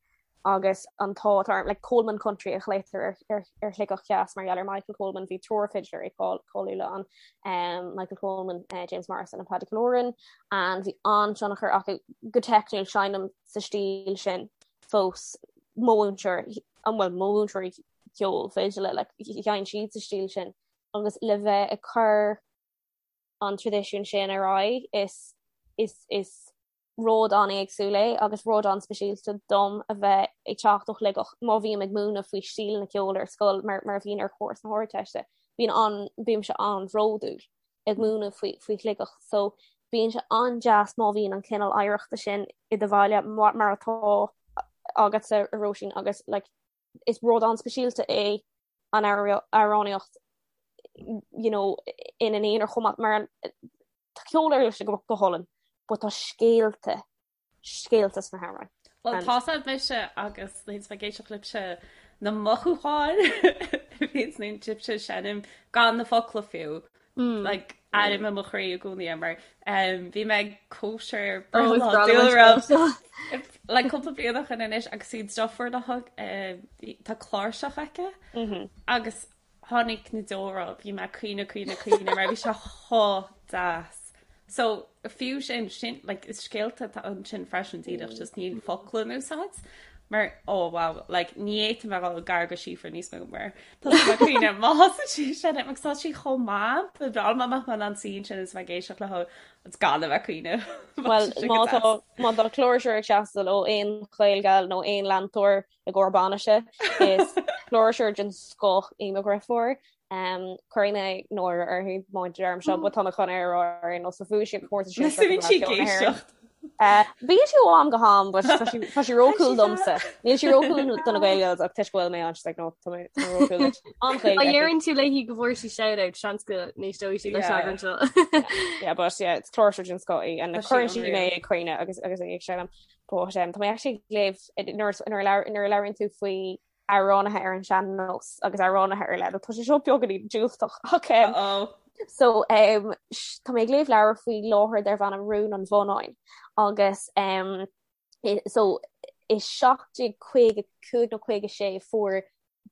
agus an t-ádh atá orm, like Coleman Country a ghlaotar ar, ar, ar Shligeach Theas mar gheall ar Michael Coleman, bhí triúr fidléirí cáiliúla ann, um, Michael Coleman, uh, James Morrison and Paddy Killoran, and bhí an-tionchar acu go teicniúil seinnim sa stíl sin fós mo mhúinteoir, an bhfuil mo mhúinteoirí ceoil fidile, like, sheinn siad sa stíl sin agus le bheith ag cur an traidisiún sin ar aghaidh is is is rud an-éagsúil é agus rud an-speisialta dom a bheith ag teacht ó Shligeach má bhím ag múineadh faoi stíleanna ceoil ar scoil mar mar a bhíonn ar chúrsa na hArdteiste bíonn an bímse an-bhródúil ag múineadh faoi faoi Shligeach so bíonn sé an-deas má bhíonn an cineál oidhreachta sin i do bhaile mar mar atá agatsa a Róisín agus like is rud an-speisialta é an amhránaíocht you know, ina n-aonar chomh maith mar tá ceol uirlise go go hálainn, but tá scéalta scéalta sna hamhráin. Well tá sé mise agus nuair ag éisteacht libhse na mothúcháin a bhíonn nuair sibhse ag seinm gan na focla fiú. Mm. Like airím i mo chroí i gcónaí é mar um, bhí mé ag cóisir breithlá dúlra like cúpla bliain ó shin anois agus í deirfiúr le thug eh, tá cláirseach aici mm -hmm. agus tháinig na deora bhí mé ag caoineadh caoineadh caoineadh mar bhí sé chomh deas. So fiú sin sin like, is scéalta atá ansin freisin díreach just níl focla in úsáid mar oh wow like ní fhéadfainn bheith ag dul gar do Síofra níos mó mar tá sí ag caoineadh má thosaíonn sí ag seinm agus tá sí chomh maith ba bhreá liom amach mar an scene sin is bheith ag éisteacht léi agus gan a bheith ag caoineadh. Well má tá má tá cláirseoir ag teastáil ó aon Ghaelgal nó aon leantóir i gcomhair bainise is cláirseoir den scoth í mo dheirfiúr. Um, cuirfidh mé náire uirthi má deirim seo, but tá mé chun é a rá ar aon nós, so bhuaigh sí an comórtas sin Bíonn sí ag éisteacht. Bíonn sí ó am go ham, but tá sí tá sí ró-cool domsa. Níl sí ró-cool do na Gael Girls ach toisc go bhfuil mé ann, she's like, no, tá mé tá mé ró-cool duit. An-Ghaeilge Má aici. dheireann tú léi go bhfuair sí shout-out, seans go n-éisteoidh sí leis Yeah. an eagrán seo. Yeah, but yeah, it's cláirseoir den scoth í and Tá sí cuireann sí mé unreal. ag caoineadh agus agus í ag seinm. But um, tá mé actually ag léamh nuair nuair a labhair- nuair a labhraíonn tú faoi amhránaithe ar an sean-nós agus amhránaithe ar leith. Tá sé seo beagáinín diúltach ach um, Uh-oh. so um, sh- tá mé ag léamh leabhar faoi láthair darb ainm Rún an Bhonnáin agus um, i- so i 1755 nó 56 fuair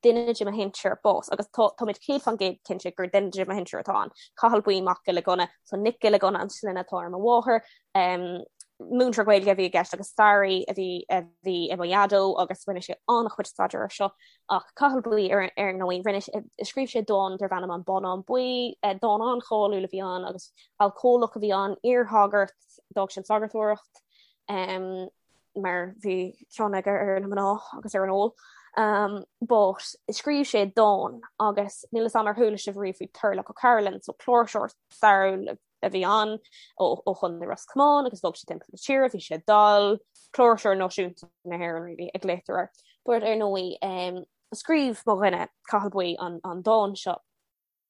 duine de mo shinsir bás agus tá táimid 100% cinnte gur duine de mo shinsir atá ann. Cathal Buí Mac Giolla Gunna, so Nic Giolla Gunna an sloinne atá ar mo mháthair. Um, múinteoir Gaeilge a bhí i gceist agus staraí a bhí a bhí i mo dhaideo agus rinne sé an-chuid staidéir air seo ach Cathal Buí ar ar ndóigh rinne scríobh sé dán darb ainm An Bonnán Buí, dán an-cháiliúil a bhí ann agus alcólach a bhí ann, iarshagart, d'fhág sé an sagartóireacht um, mar bhí cion aige ar na mná agus ar an ól. Um, but scríobh sé dán agus níl a fhios agam ar chuala sibh riamh faoi Turlough O'Carolan, so cláirseoir stairiúil a bhí ann ó Chontae Ros Comáin agus bhog sé timpeall na tíre, bhí sé dall, cláirseoir náisiúnta na hÉireann really a ghlaotar air. But ar ndóigh um, scríobh mo dhuine Cathal Buí an, an dán seo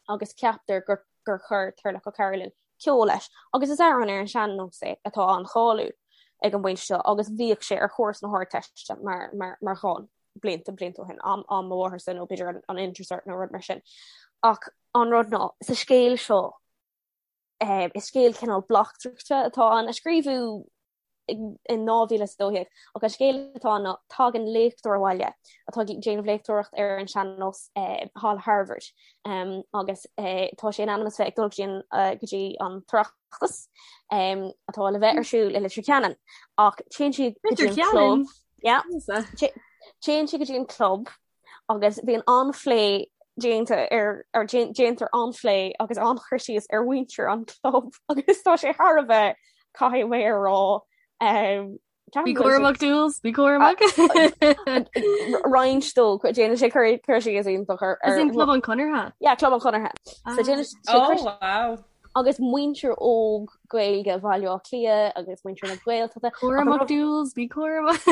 agus ceaptar gur, gur chuir Turlough O'Carolan ceol leis agus is amhrán ar an sean-nós é atá an-cháiliúil ag an bpointe seo agus bhíodh sé ar chúrsa na hArdteiste mar, mar, mar dhán blianta blianta ó shin am, am mo mhátharsa nó b'fhéidir an, an Intercert nó rud mar sin. Ach an rud ná sa scéal seo Is scéal cineál bleachtaireachta atá ann, a scríobhadh in 2012, ach an scéal atá ann ná tagann léachtóir abhaile atá ag déanamh léachtóireacht ar an sean-nós thall i Harvard agus tá sé in ainm is bheith ag dul go dtí an tOireachtas atá le bheith ar siúl i Leitir Ceanainn ach téann sé go dtí an club. Téann sé go dtí an club agus bíonn an-phlé déanta ar ar déantar an-phlé agus an-chur síos ar mhuintir an chlub agus tá sé thar a bheith caithfidh mé a rá um, Bí cúramach Jules, bí cúramach. Roinnt dó déanann sé cur cur síos iontach ar As in Club an Chonartha? Yeah, Club an Chonartha. So déanann sé Oh, wow. agus muintir óg Gaeilge Bhaile Átha Cliath agus muintir na Gaeltachta. Cúramach Jules, bí cúramach.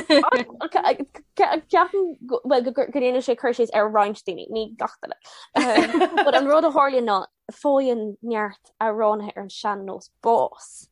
Ceapaim well go ndéanann sé cur síos ar roinnt daoine, ní gach duine. But an rud a tharlaíonn ná faigheann neart amhránaithe ar an sean-nós bás.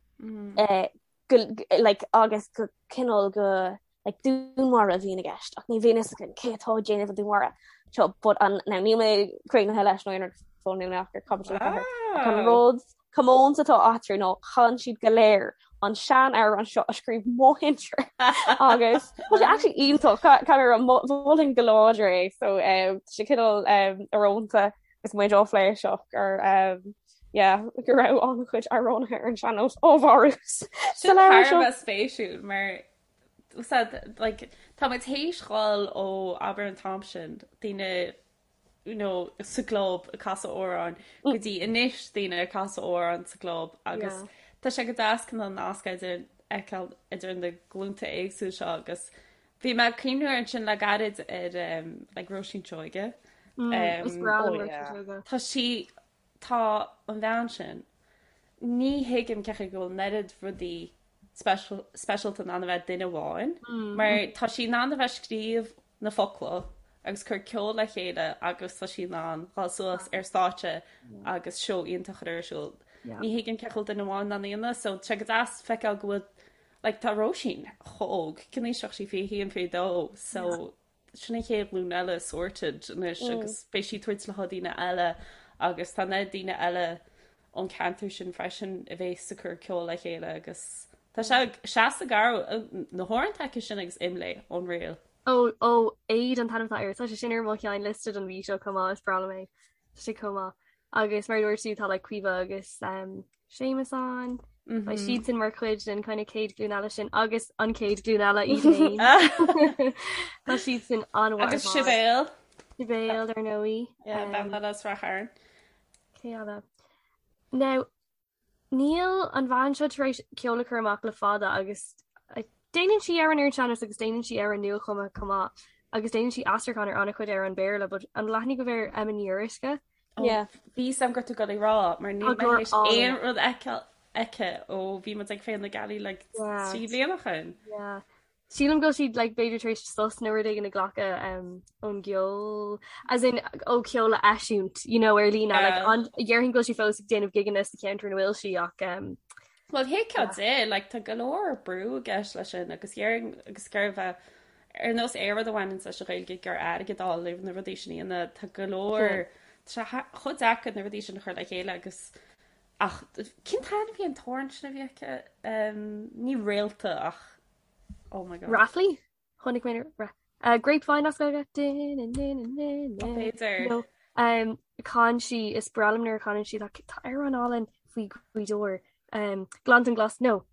Go like agus go cineál go like dúnmharú a bhíonn i gceist ach ní bhíonn fhios againn cé atá ag déanamh an dúnmharú seo but an now níl mé críochnaithe leis nó aon rud fós níl mé ach ar caibidil 4 ach an rud comónta atá eatarthu ná chan siad go léir an sean-amhrán seo a scríobh mo shinsir agus tá sé actually iontach caithfidh mé a rá mholfainn go láidir é so um, tá sé cineál um, íorónta agus muid á phlé seo gur um, yeah, go raibh an-chuid amhránaithe ar an sean-nós á mharú sa Sin leabhar thar a seo. bheith spéisiúil mar Said, like, tá muid théis dhul ó abair an t-am sin, daoine you know, sa gclub ag casadh amhráin go dtí anois daoine ag casadh amhráin sa gclub agus Yeah. tá sé go deas cineál nasc idir fheiceáil idir na glúnta éagsúla seo agus bhí mé ag cuimhniú ar ansin le gairid ar um, like Róisín Seoige. Mm, is Um, breá Oh liom Róisín yeah. Seoige. tá sí Tá an bhean sin. Ní thuigim cén chaoi go bhfuil an oiread rudaí speisialta in ann a bheith ag duine amháin, mar tá sí in ann a bheith ag scríobh na focla agus cur ceol le chéile agus tá sí in ann dhul suas ar stáitse agus seó iontach a chur ar siúl. Ní thuigim cén chaoi go bhfuil duine amháin in ann a dhéanamh, so tá sé go deas feiceáil go bhfuil like tá Róisín chomh óg, cén aois atá sí 21, 22, so Sin an chéad ghlúin eile sorted anois agus beidh sí ag tabhairt le daoine eile agus tá na daoine eile ón ceantar sin freisin a bhéas ag cur ceol le chéile agus tá sé seasta garbh na hamhráin aici sin agus Imlé unreal. Ó ó Éad an t-ainm atá air. Tá sé sin ar mo cheann liosta don mhí seo chomh maith, is breá liom é. Tá sé chomh maith. Agus mar a dúirt tú tá like Caoimhe agus um, Séamus ann. Mm -hmm. siadsan mar chuid den kind of chéad ghlúin eile sin agus an chéad ghlúin eile iad féin. Tá siadsan an Agus Sibéal. Sibéal ar ndóigh. Um, bean as Ráth Chairn. Cé eile? Now, Níl an bhean seo tar éis ceol a chur amach le fada agus déanann sí amhráin ar an sean-nós agus déanann sí amhráin nuachumtha chomh maith agus déanann sí aistriúchán ar an-chuid amhrán Béarla but an bhfuil aithne agaibh ar Emma Ní Fhíoruisce? Yeah. Bhí a fhios agam go raibh tú ag dul a rá mar níl mé théis aon rud a fheiceáil. aici ó bhí muid ag Féile na Gealaí like 3 bliana ó shin. Yeah. Sílim go bhfuil sí like b'fhéidir tar éis sos nó rud éigin a ghlacadh um, ón gceol as in ó ceol a eisiúint you know, ar líne like, an déarfainn go bhfuil sí fós ag déanamh gigeanna sa cheantar ina bhfuil sí ach um, Well thuigfeá di, like, tá go leor brú i gceist leis sin agus dhéarfainn agus gurbh é ar nós aon rud a bhaineann leis an Ghaeilge gur airgead a fháil na rudaí sin a dhéanamh tá go leor tá sé chomh deacair na rudaí sin a chur le chéile agus ach cén t-ainm a bhí an t-amhrán sin a bhí aici um, ní réalta ach oh my god. Raflaí? Chonaic mé ra uh, Grapevine as Gaeilge. B'fhéidir. No. Um, chan sí is breá liom nuair a chanann sí tá tá amhrán álainn faoi Ghaoth Dobhair. Um, Gleanntan Glas no.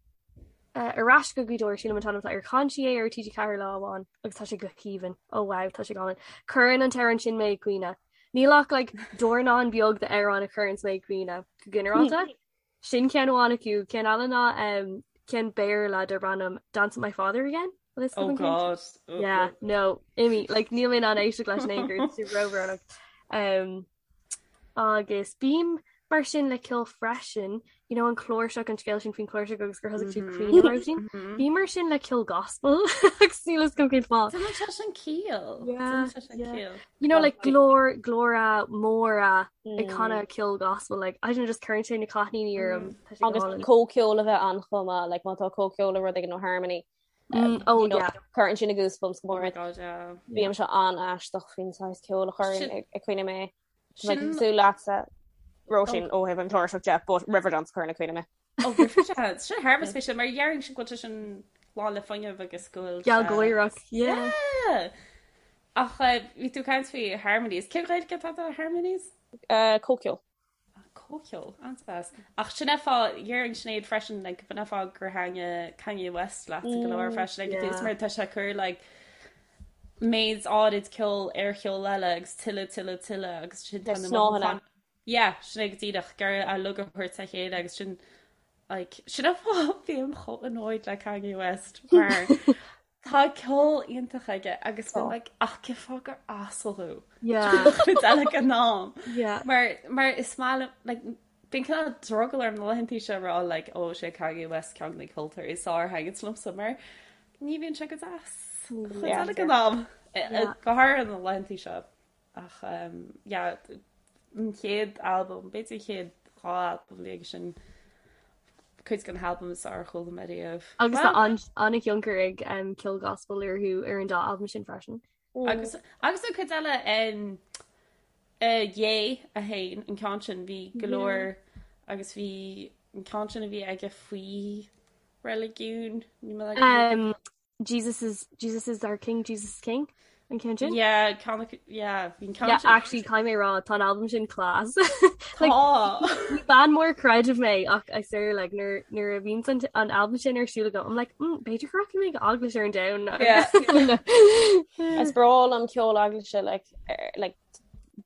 Uh, ar ais go Gaoth Dobhair sílim an t-ainm atá air chan sí é ar TG4 lá amháin agus tá sé go haoibhinn. Oh wow, tá sé go hálainn. Cuireann an t-amhrán sin mé ag caoineadh. Níl ach like, dornán beag d'amhráin a chuireann mé ag caoineadh go ginearálta. Sin ceann amháin acu, ceann eile ná um, ceann Béarla darb ainm Dance with My Father Again. Oh God. Yeah, no, imigh, like, níl mé in ann éisteacht leis in aon chor, tá sé róbhrónach. Um, agus bím mar sin le ceol freisin, you know, an chláirseach an scéal sin faoin chláirseach agus gur thosaigh tú ag caoineadh roimh sin. Bím mar sin le ceol gospel agus níl a fhios agam cén fáth. Déanann sé sin ciall. Déanann sé sin ciall. You know, like glór glóra móra ag canadh ceol gospel, like I don't know, just cuireann sé na cáithníní orm. Tá sé go Agus hálainn. comhcheol a bheith ann chomh maith, like má tá comhcheol le rud éigin nó harmony, Oh you know, yeah. cuireann sin na goosebumps go Oh mór my ort. God, yeah. Bímse an-aisteach faoin saghas ceoil a chuireann Sin ag ag caoineadh mé. Tá mé sin cosúil leatsa, Róisín, oh ó thaobh an chláirseach de, but Riverdance a chuireann ag caoineadh mé. oh Riverdance. Sin thar a bheith spéisiúil mar déarfainnse go bhfuil sé sin lán le fuinneamh agus go bhfuil sé Gealgháireach, yeah. Yeah! Ach bhí tú ag caint faoi harmonies. Cén Ghaeilge atá do harmonies? Comhcheol. Comhcheol, an-deas. Ach sin é fáth, déarfainn Sinéad freisin, like, b'in é fáth gur thaitnigh Kanye West leat go leor freisin ag an tús mar tá sé ag cur like, méid áirid ceoil ar cheol eile agus tuilleadh, tuilleadh, tuilleadh agus sin Na tá na snáthanna. mothúcháin. Yeah, sin é go díreach, gur a lug a thabhairt le chéile agus sin like, sin é fáth bím chomh annoyed le Kanye West mar Tá ceol iontach aige agus bím like ach cén fáth gur asal thú? Yeah. Cuid eile den am. Yeah. Mar mar is maith liom like bíonn cineál drogall orm na laethantaí seo a rá like ó sé Kanye West ceann de na ceoltóirí is fearr a thaitníonns liomsa mar ní bhíonn sé go deas. Chuid Yeah. eile den am. Go háirithe na laethantaí seo. Ach yeah, an chéad albam, b'fhéidir an chéad dá albam a bhí aige sin, cuid de na halbaim is fearr a chuala mé riamh. Agus tá an-thionchar ag ceol gospel orthu ar an dá albam sin freisin. Agus agus an cuid eile um, uh, Ye a haon, an ceann sin bhí go leor agus bhí an ceann sin a bhí aige faoi reiligiún, ní mé Um, Jesus is Jesus is our king, Jesus is king an ceann sin? Yeah, ceann acu- yeah, bhí an ceann Yeah, sin. actually caithfidh mé rá tá an albam sin class. Like, Tá. ní bean mór creidimh mé ach I swear like nuair nuair a bhíonn an an albam sin ar siúl agam I'm like mm, b'fhéidir go rachaidh mé go eaglais ar an Domhnach. Yeah. Is breá liom ceol eaglaise like, er, like,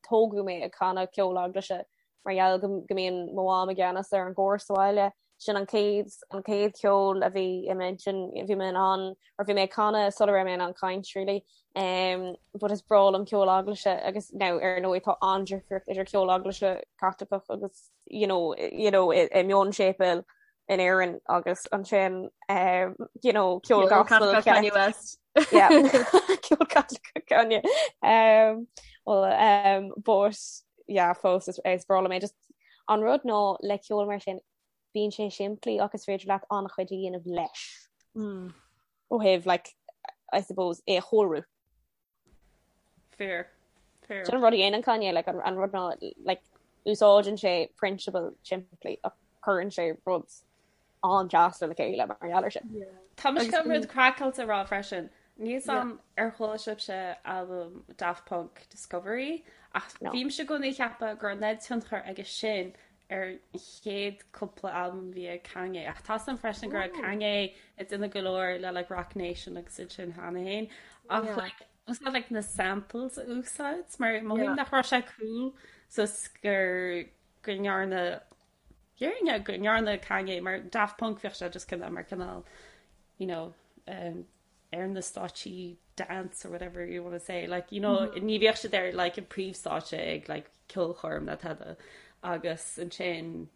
tógadh mé ag canadh ceol eaglaise mar gheall go go mbíonn mo mham i gceannas ar an gcór sa bhaile. Sin an chéad an chéad cheol a bhí i m'intinn, bhí mé in ann or bhí mé ag canadh sula raibh mé in ann caint really. Um, but is breá liom ceol eaglaise agus now ar ndóigh tá an-difríocht idir ceol eaglaise Caitliceach agus you know, you know, i, i mionséipéil in Éirinn agus ansin um, you know, ceol gospel Kanye West. Yeah. Ceol Caitliceach Kanye. Um, well, um, but yeah, fós is, is breá liom é just an rud ná le ceol mar sin bíonn sé simplí ach is féidir leat an-chuid a dhéanamh leis. Mm. Ó thaobh like, I suppose é a chóiriú. Fair. Fair. Sin an rud a dhéanann Kanye like, an, an rud ná like, úsáideann sé prionsabal simplí ach cuireann sé rud an-deas le chéile mar gheall air sin. Tá mise chun rud craiceáilte a rá freisin. Níl a fhios agam ar chuala sibhse albam Daft Punk Discovery ach No. bhímse i gcónaí ag ceapadh go raibh an tionchar aige sin ar an chéad cúpla albam a bhí ag Kanye ach tá a fhios agam freisin go raibh Kanye ag déanamh go leor le like Roc Nation agus iad sin cheana féin ach Yeah. like úsáid like na samples a úsáid mar mothaím Yeah. nach raibh sé cool so gur go ndearna Déarfainn go ndearna Kanye mar Daft Punk bheadh sé just cineál mar cineál you know um, ar na stáitsí dance or whatever you want to say like you know mm -hmm. ní bheadh siad ar like an príomhstáitse ag like ceolchoirm ná tada agus ansin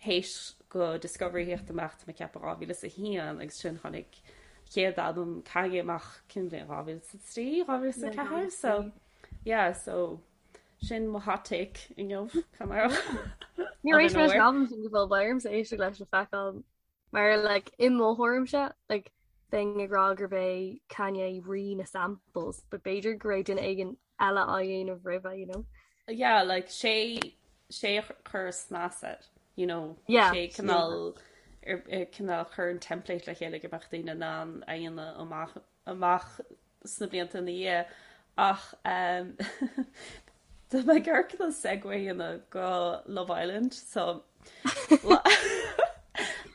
Théis go Discovery theacht amach tá mé ag ceapadh 2001 agus sin tháinig chéad albam Kanye amach cén bhliain 2003, 2004 so yeah so sin mo hot take inniu Níor éist mé leis an albam sin go fóill beidh ormsa éisteacht leis le feiceáil mar like i mo thuairimse like bheinn ag rá gurb é Kanye rí na samples but b'fhéidir go raibh duine éigin eile á dhéanamh roimhe you know. Yeah like sé sé a chuir snas air you know yeah, sé cineál cineál chuir an template le chéile go mbeadh daoine in ann a dhéanamh amach amach sna blianta ina dhiaidh ach um, Tá mé ag iarraidh cineál segue a dhéanamh go Love Island so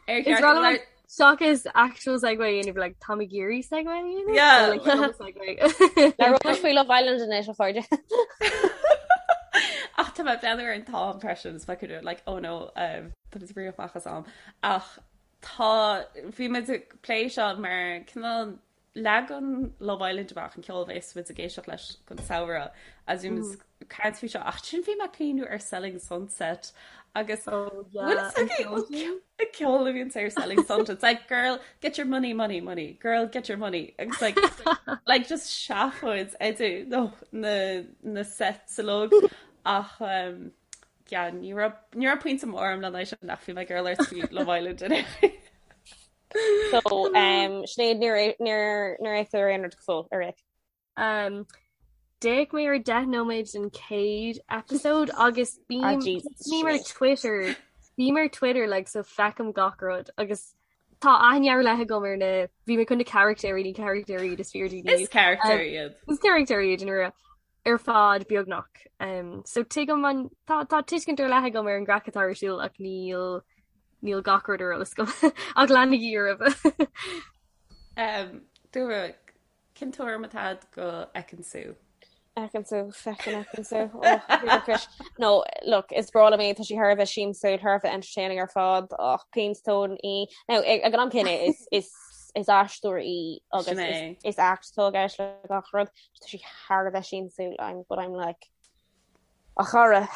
Ar Is ceart like seachas actual segue a dhéanamh like tá mé ag iarraidh segue a dhéanamh? Yeah. So, like, no segue. Labhróidh faoi Love Island anois a chairde. Ach tá mé ag breathnú ar an t-am freisin is feicim like oh no um, tá muid ag rith amach as am. Ach tá bhí muid ag plé seo mar cineál Leagann Love Island amach an ceol a bheas muid ag éisteacht leis don samhradh agus bhí muid ag caint faoi seo ach ansin bhí mé ag cuimhniú ar Selling Sunset agus Oh yeah, bhfuil fhios an agaibh ceol sin? an ceol a bhíonn ar Selling Sunset it's like girl get your money money money girl get your money agus like like just seafóid idir no na na sets uilig ach um, yeah, ní raibh ní raibh pointe mór agam lena aghaidh sin ach bhí mé ag iarraidh labhairt faoi Love Island anyway. So um, Sinéad níor níor níor fhéach tú ar aon rud go fóill ar fhéach. Um, D'fhéach mé ar 10 nóiméad den chéad episode agus Ah, bím Jesus, bím ar Sinéad. Twitter bím ar Twitter like so feicim gach rud agus tá aithne ar leith agam ar na bhí mé chun na carachtéirí ní carachtéirí iad is fíordaoine Is carachtéir iad. Is carachtéirí iad in ar fad beagnach. Um, so tuigim an tá tá tuiscint ar leith agam ar an gcraic atá ar siúl ach níl níl gach rud ar eolas agam ach leanaigí oraibh. Um, Dúra, cén tuairim atá agat go Ekin-Su? Ekin-Su, feckin Ekin-Su. Oh, Chris. No, look, is breá liom í, tá sí thar a bheith siamsúil, thar a bheith entertaining ar fad, ach péinstón í. Now, ag ag an am céanna, is, is, is aisteoir í agus Sin é. is, is act atá i gceist le gach rud. Tá sí thar a bheith siamsúil, I'm, but I'm like, a chara,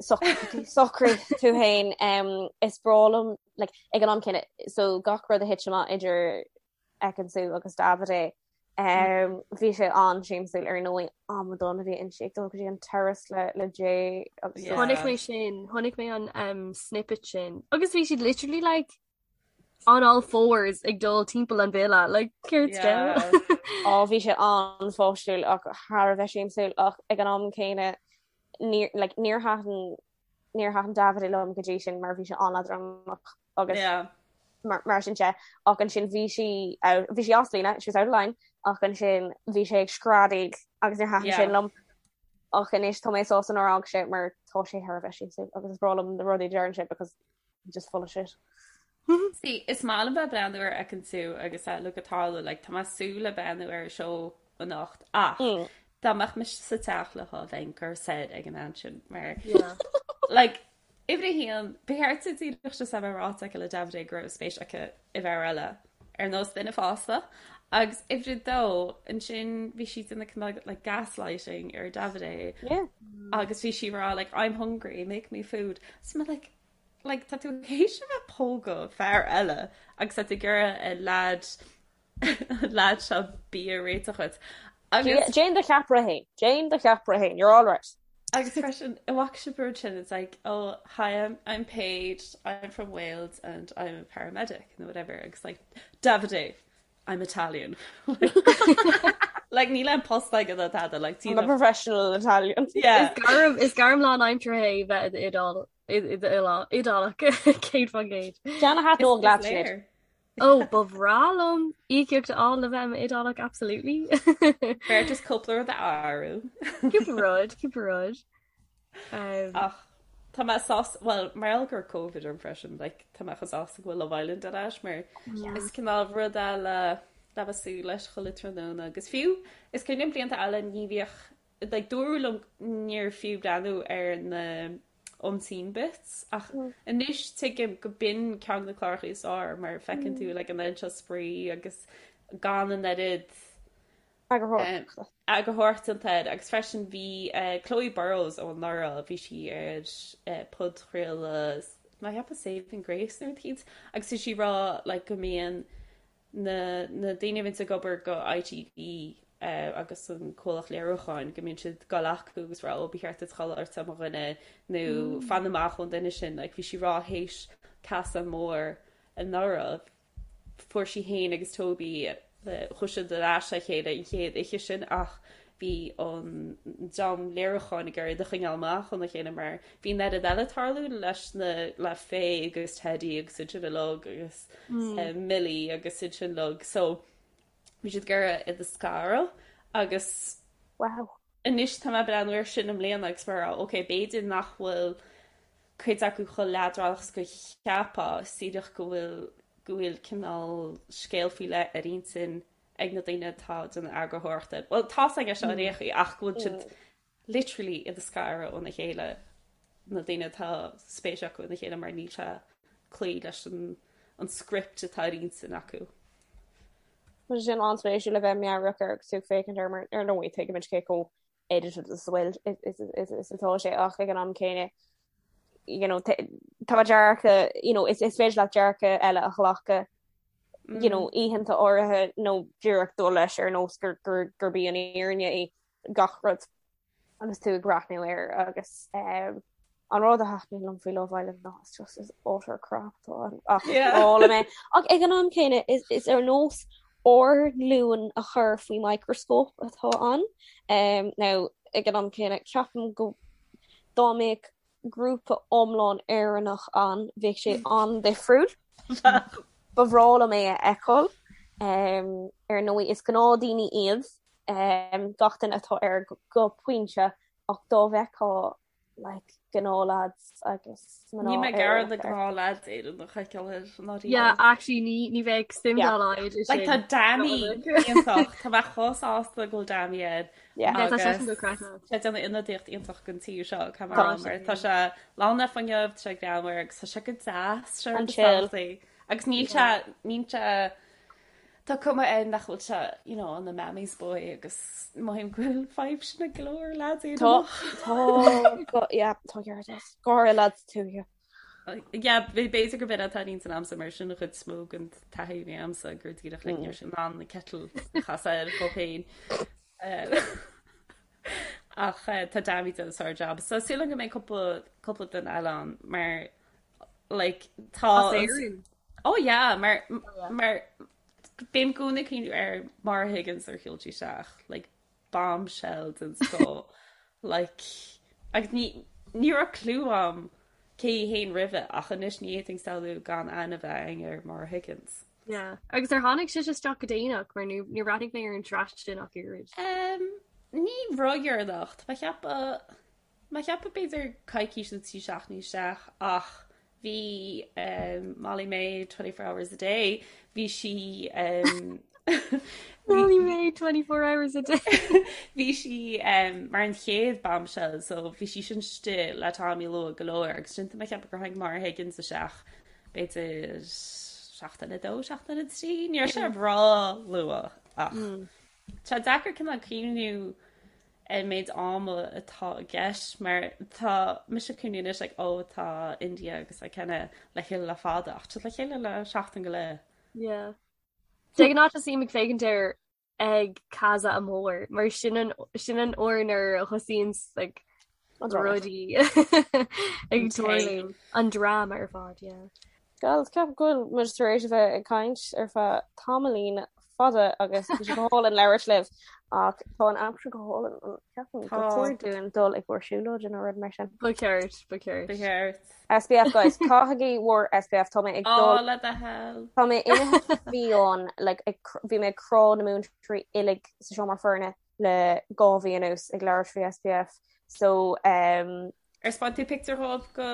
socraigh tú féin, um, is breá liom, like, ag an am céanna, so gach rud a thit amach idir Ekin-Su agus Davide, um, bhí sé an-siamsúil ar ndóigh, amadán a bhí inti ag dul go dtí an terrace le, le Jay agus Yeah. Chonaic mé sin, chonaic mé an um, snippet sin. Agus bhí siad literally like on all fours ag dul timpeall an villa, like céard Yeah. scéal? Á bhí sé an-pháistiúil ach thar a bheith siamsúil ach ag an am céanna níor like, níor thaitin níor thaitin Davide liom go dtí sin mar bhí sé an-leadránach agus Yeah. mar, mar sin de ach ansin bhí sí out, bhí sí as líne, she was out of line ach ansin bhí sé ag screadaíl agus níor thaitin Yeah. sin liom ach anois tá mé sásta nár fhág sé mar tá sé thar a bheith siamsúil agus is breá liom na rudaí a deireann sé because just full of shit. See, is maith liom bheith breathnú ar Ekin-Su agus a look atá like, tá mé ag súil le breathnú ar an seó anocht ach Mm. dá mbeadh mise sa teach leo bheinn curtha soir ag an mbean sin mar Yeah. like uimhir a haon ba cheart di díreach just a bheith ráite aici le Davide go raibh spéis aici i bhfear eile ar nós duine fásta agus uimhir a dó ansin bhí sí déanamh cineál like gaslighting ar Davide Yeah. agus bhí sí ag rá like I'm hungry make me food so mé like like tá tú théis a bheith ag pógadh fear eile agus tá tú ag iarraidh an lad an lad seo bia a réiteach dhuit agus Déan do cheapaire féin. Déan do cheapaire féin. You're all right. agus freisin an bhfaca sibh an rud sin it's like oh hi I'm I'm Paige I'm from Wales and I'm a paramedic nó whatever agus like Davide I'm Italian like níl aon post aige ná tada like I'm a professional Italian. yeah Is gairm is gairm lánaimseartha é bheith i d'Iodál Iodálach 100%. Ceann a thaitneodh Is leat is Sinéad. léir. Ó ba bhreá liom íocaíocht a fháil le bheith i m'Iodálach absolutely. B'fhearr just cúpla rud a athrú. Cúpla rud, cúpla rud. Um, Ach tá mé sásta well mar gheall go raibh Covid orm freisin like tá mé chomh sásta go bhfuil Love Island ar ais mar is cineál rud eile le bheith ag súil leis chuile tráthnóna agus fiú is cuimhin liom blianta eile ní bhíodh like dúradh liom níor fiú breathnú ar na unseen bits ach anois tuigim go b'in ceann de na cláracha is fearr mar feiceann tú like an oiread seo spraoi agus gan an oiread Eagarthóireachta. Eagarthóireacht déanta air agus freisin bhí Chloe Burrows ó anuraidh, bhí sí ar podchraoladh. Tá mé ag ceapadh Saving Grace nó rud eicínt agus tá sí ag rá like go mbíonn na na daoine a bhíonns ag obair go ITV agus an comhlacht léiriúcháin go mbíonn siad ag dul acu agus rá ó ba cheart duit chodladh ort mo dhuine nó fan amach ón duine sin like bhí sí ag rá théis casadh mór anuraidh Fuair sí féin agus Toby, chuaigh siad ar ais le chéile an chéad oíche sin ach bhí an dream léiriúcháin ag iarraidh iad a choinneáil amach óna chéile mar bhí an oiread eile ag tarlú leis na, le Faye agus Teddy agus iad sin uilig agus Millie agus iad sin uilig so bhí siad ag iarraidh iad a scaradh agus Wow. anois tá mé ag breathnú air sin i mbliana agus mar ok b'fhéidir nach bhfuil cuid acu chomh leadránach is go cheapfá, is díreach go bhfuil go bhfuil cineál scéal faoi leith ar intinn ag na daoine atá ag déanamh eagarthóireachta. Bhuel, tá's againn seo ar aon chaoi ach go bhfuil siad literally iad a scaradh óna chéile, na daoine atá spéis acu ina chéile mar níl sé cloí leis an an script atá ar intinn acu. Tá sé sin an-spéisiúil le bheith meabhrach air agus tú ag féachaint air mar ar ndóigh tuigimid cé chomh edited is bhfuil is atá sé ach ag an am céanna you know tá dearcadh you know is is féidir leat dearcadh eile a ghlacadh you know mm. oícheanta áirithe nó díreach dul leis ar nós gur gur gurb í an fhírinne í gach rud agus tú ag breathnú air agus um, an rud a thaitníonn liom faoi Love Island ná it's just is utter crap atá ann ach is breá liom é. Ach ag an am céanna is is ar nós ár nglúin a chur faoi microscope atá ann. Um, now ag an am céanna ceapaim go dá mbeadh grúpa iomlán Éireannach ann bheadh sé an-difriúil. Ba bhreá liom é a fheiceáil. Um, ar ndóigh is gnáthdhaoine iad um, gach duine atá air go, go pointe ach dá bhfeicfeá like gnáth-lads agus mná Níl mé ag iarraidh na gnáth-lads Éireannach a fheiceáil air ná riamh. Yeah, actually ní ní bheadh suim dá laghad i Like tá sin. Danny iontach, tá mé chomh sásta go bhfuil Danny air Yeah. Yeah, tá seisean go craiceáilte. Tá sé ag déanamh ionadaíocht iontach don tír seo caithfidh mé a rá mar tá sé lán le fuinneamh, tá sé greannmhar agus tá sé go deas, sé An chill. Agus níl sé níl sé Tá cuma air nach bhfuil sé, you know, ina mammy's boy agus mothaím go bhfuil fadhb sin ag go leor lads Éireannach. Tá, tá, yeah, tá ceart agat. Go háirithe lads tuaithe. Yeah, b'fhéidir gurb in atá ar intinn a'msa mar sin an chuid is mó den taithí a bhí a'msa gur díreach like ní raibh sé in ann an kettle a chasadh air dhó féin. Ach tá Dami ag déanamh sár-jab. So súil agam go mbeidh cúpla cúpla duine eile ann mar like tá As Éirinn? Oh yeah, mar mar bím i gcónaí ag cuimhniú ar Maura Higgins ar shiúil sí isteach, like bombshell den scoth, like agus ní ní raibh clue a'm cé hí féin roimhe ach anois ní fhéadfainn samhlú gan aithne a bheith againn ar Maura Higgins. Yeah. Agus ar tháinig sise isteach go déanach mar níor níor bhreathnaigh mé ar an tsraith sin ach oiread. Um, ní ródheireanach, tá mé ag ceapadh Mé ag ceapadh b'fhéidir coicís nó 3 seachtainí isteach ach bhí Molly-Mae 24 hours a day, bhí sí Molly-Mae 24 hours a day. Bhí sí mar an chéad bombshell so bhí sí sin istigh le Tommy luath go leor agus sin tá mé ag ceapadh gur tháinig Maura Higgins isteach b'fhéidir seachtain 2, seachtain 3, ní raibh sé ró-luath ach tá deacair cineál cuimhniú ar an méid ama atá i gceist mar tá mise ag cuimhniú anois like oh tá India agus Ikenna le chéile le fada ach tá le chéile le seachtain go leith. Yeah. De ghnáth tosaím ag féachaint air ag Casa Amor mar sin an sin an uair nuair a thosaíonn like rudaí ag tarlú an dráma ar fad, yeah. Girls, ceapaim go bhfuil muid tar éis a bheith ag caint ar feadh tamaillín fada agus bhí sé go hálainn labhairt libh ach tá an aimsir go hálainn an ceapaim gur chóir dúinn dul i gcomhair siúlóide nó rud mar sin. Ba cheart, ba cheart. Ba cheart. SPF guys, caithigí bhur SPF tá mé ag dul. Ó, le do thoil. Tá mé imithe fiáin like bhí mé ag crá na múinteoirí uilig sa seomra foirne le 2 mhí anuas ag labhairt faoi SPF so um, Ar 'speáin tú pictiúr dhóibh go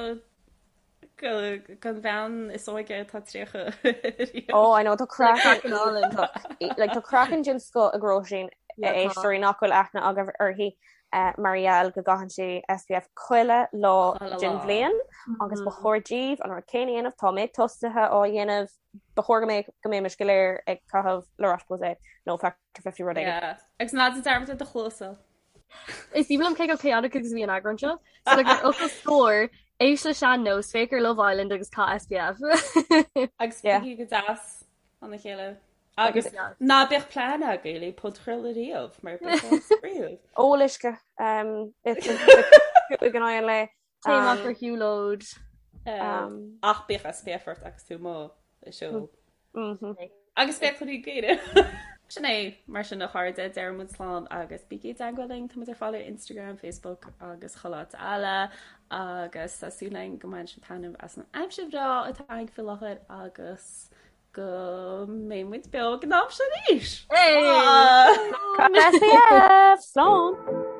gon bhean is óige atá 30 Oh I know tá craiceann iontach like tá craiceann den scoth ag Róisín a éisteoirí nach bhfuil aithne agaibh uirthi mar gheall go gcaitheann sí SPF chuile lá den bhliain agus ba chóir daoibh an rud céanna a dhéanamh tá mé tosaithe á dhéanamh ba chóir go mbeadh go mbeimis go léir ag caitheamh La Roche-Posay nó Factor 50 rud éigin. Agus ná déan dearmad ar do chluasa. Is aoibhinn liom cé chomh chaotic agus a bhí an eagrán seo. So like ar fhocal scoir. Éist le sean-nós, féach ar Love Island agus caith SPF. Agus bígí go deas lena chéile. Agus ná bíodh plean agaibh le podchraoladh riamh mar beidh sé spraíúil. Ól uisce ag an aghaidh an lae. Téigh amach ar shiúlóid. Ach bíodh SPF ort agus tú amuigh ag siúl. Agus féach cluichí Gaeilge. Sin é, mar sin a chairde, deir muid slán agus bígí i dteagmháil linn, tá muid ar fáil ar Instagram, Facebook agus chuile áit eile agus tá súil againn go mbaineann sibh taitneamh as an aimsir bhreá atá againn faoi láthair agus go mbeidh muid beo ag an am sin arís! Hey! SPF! Slán!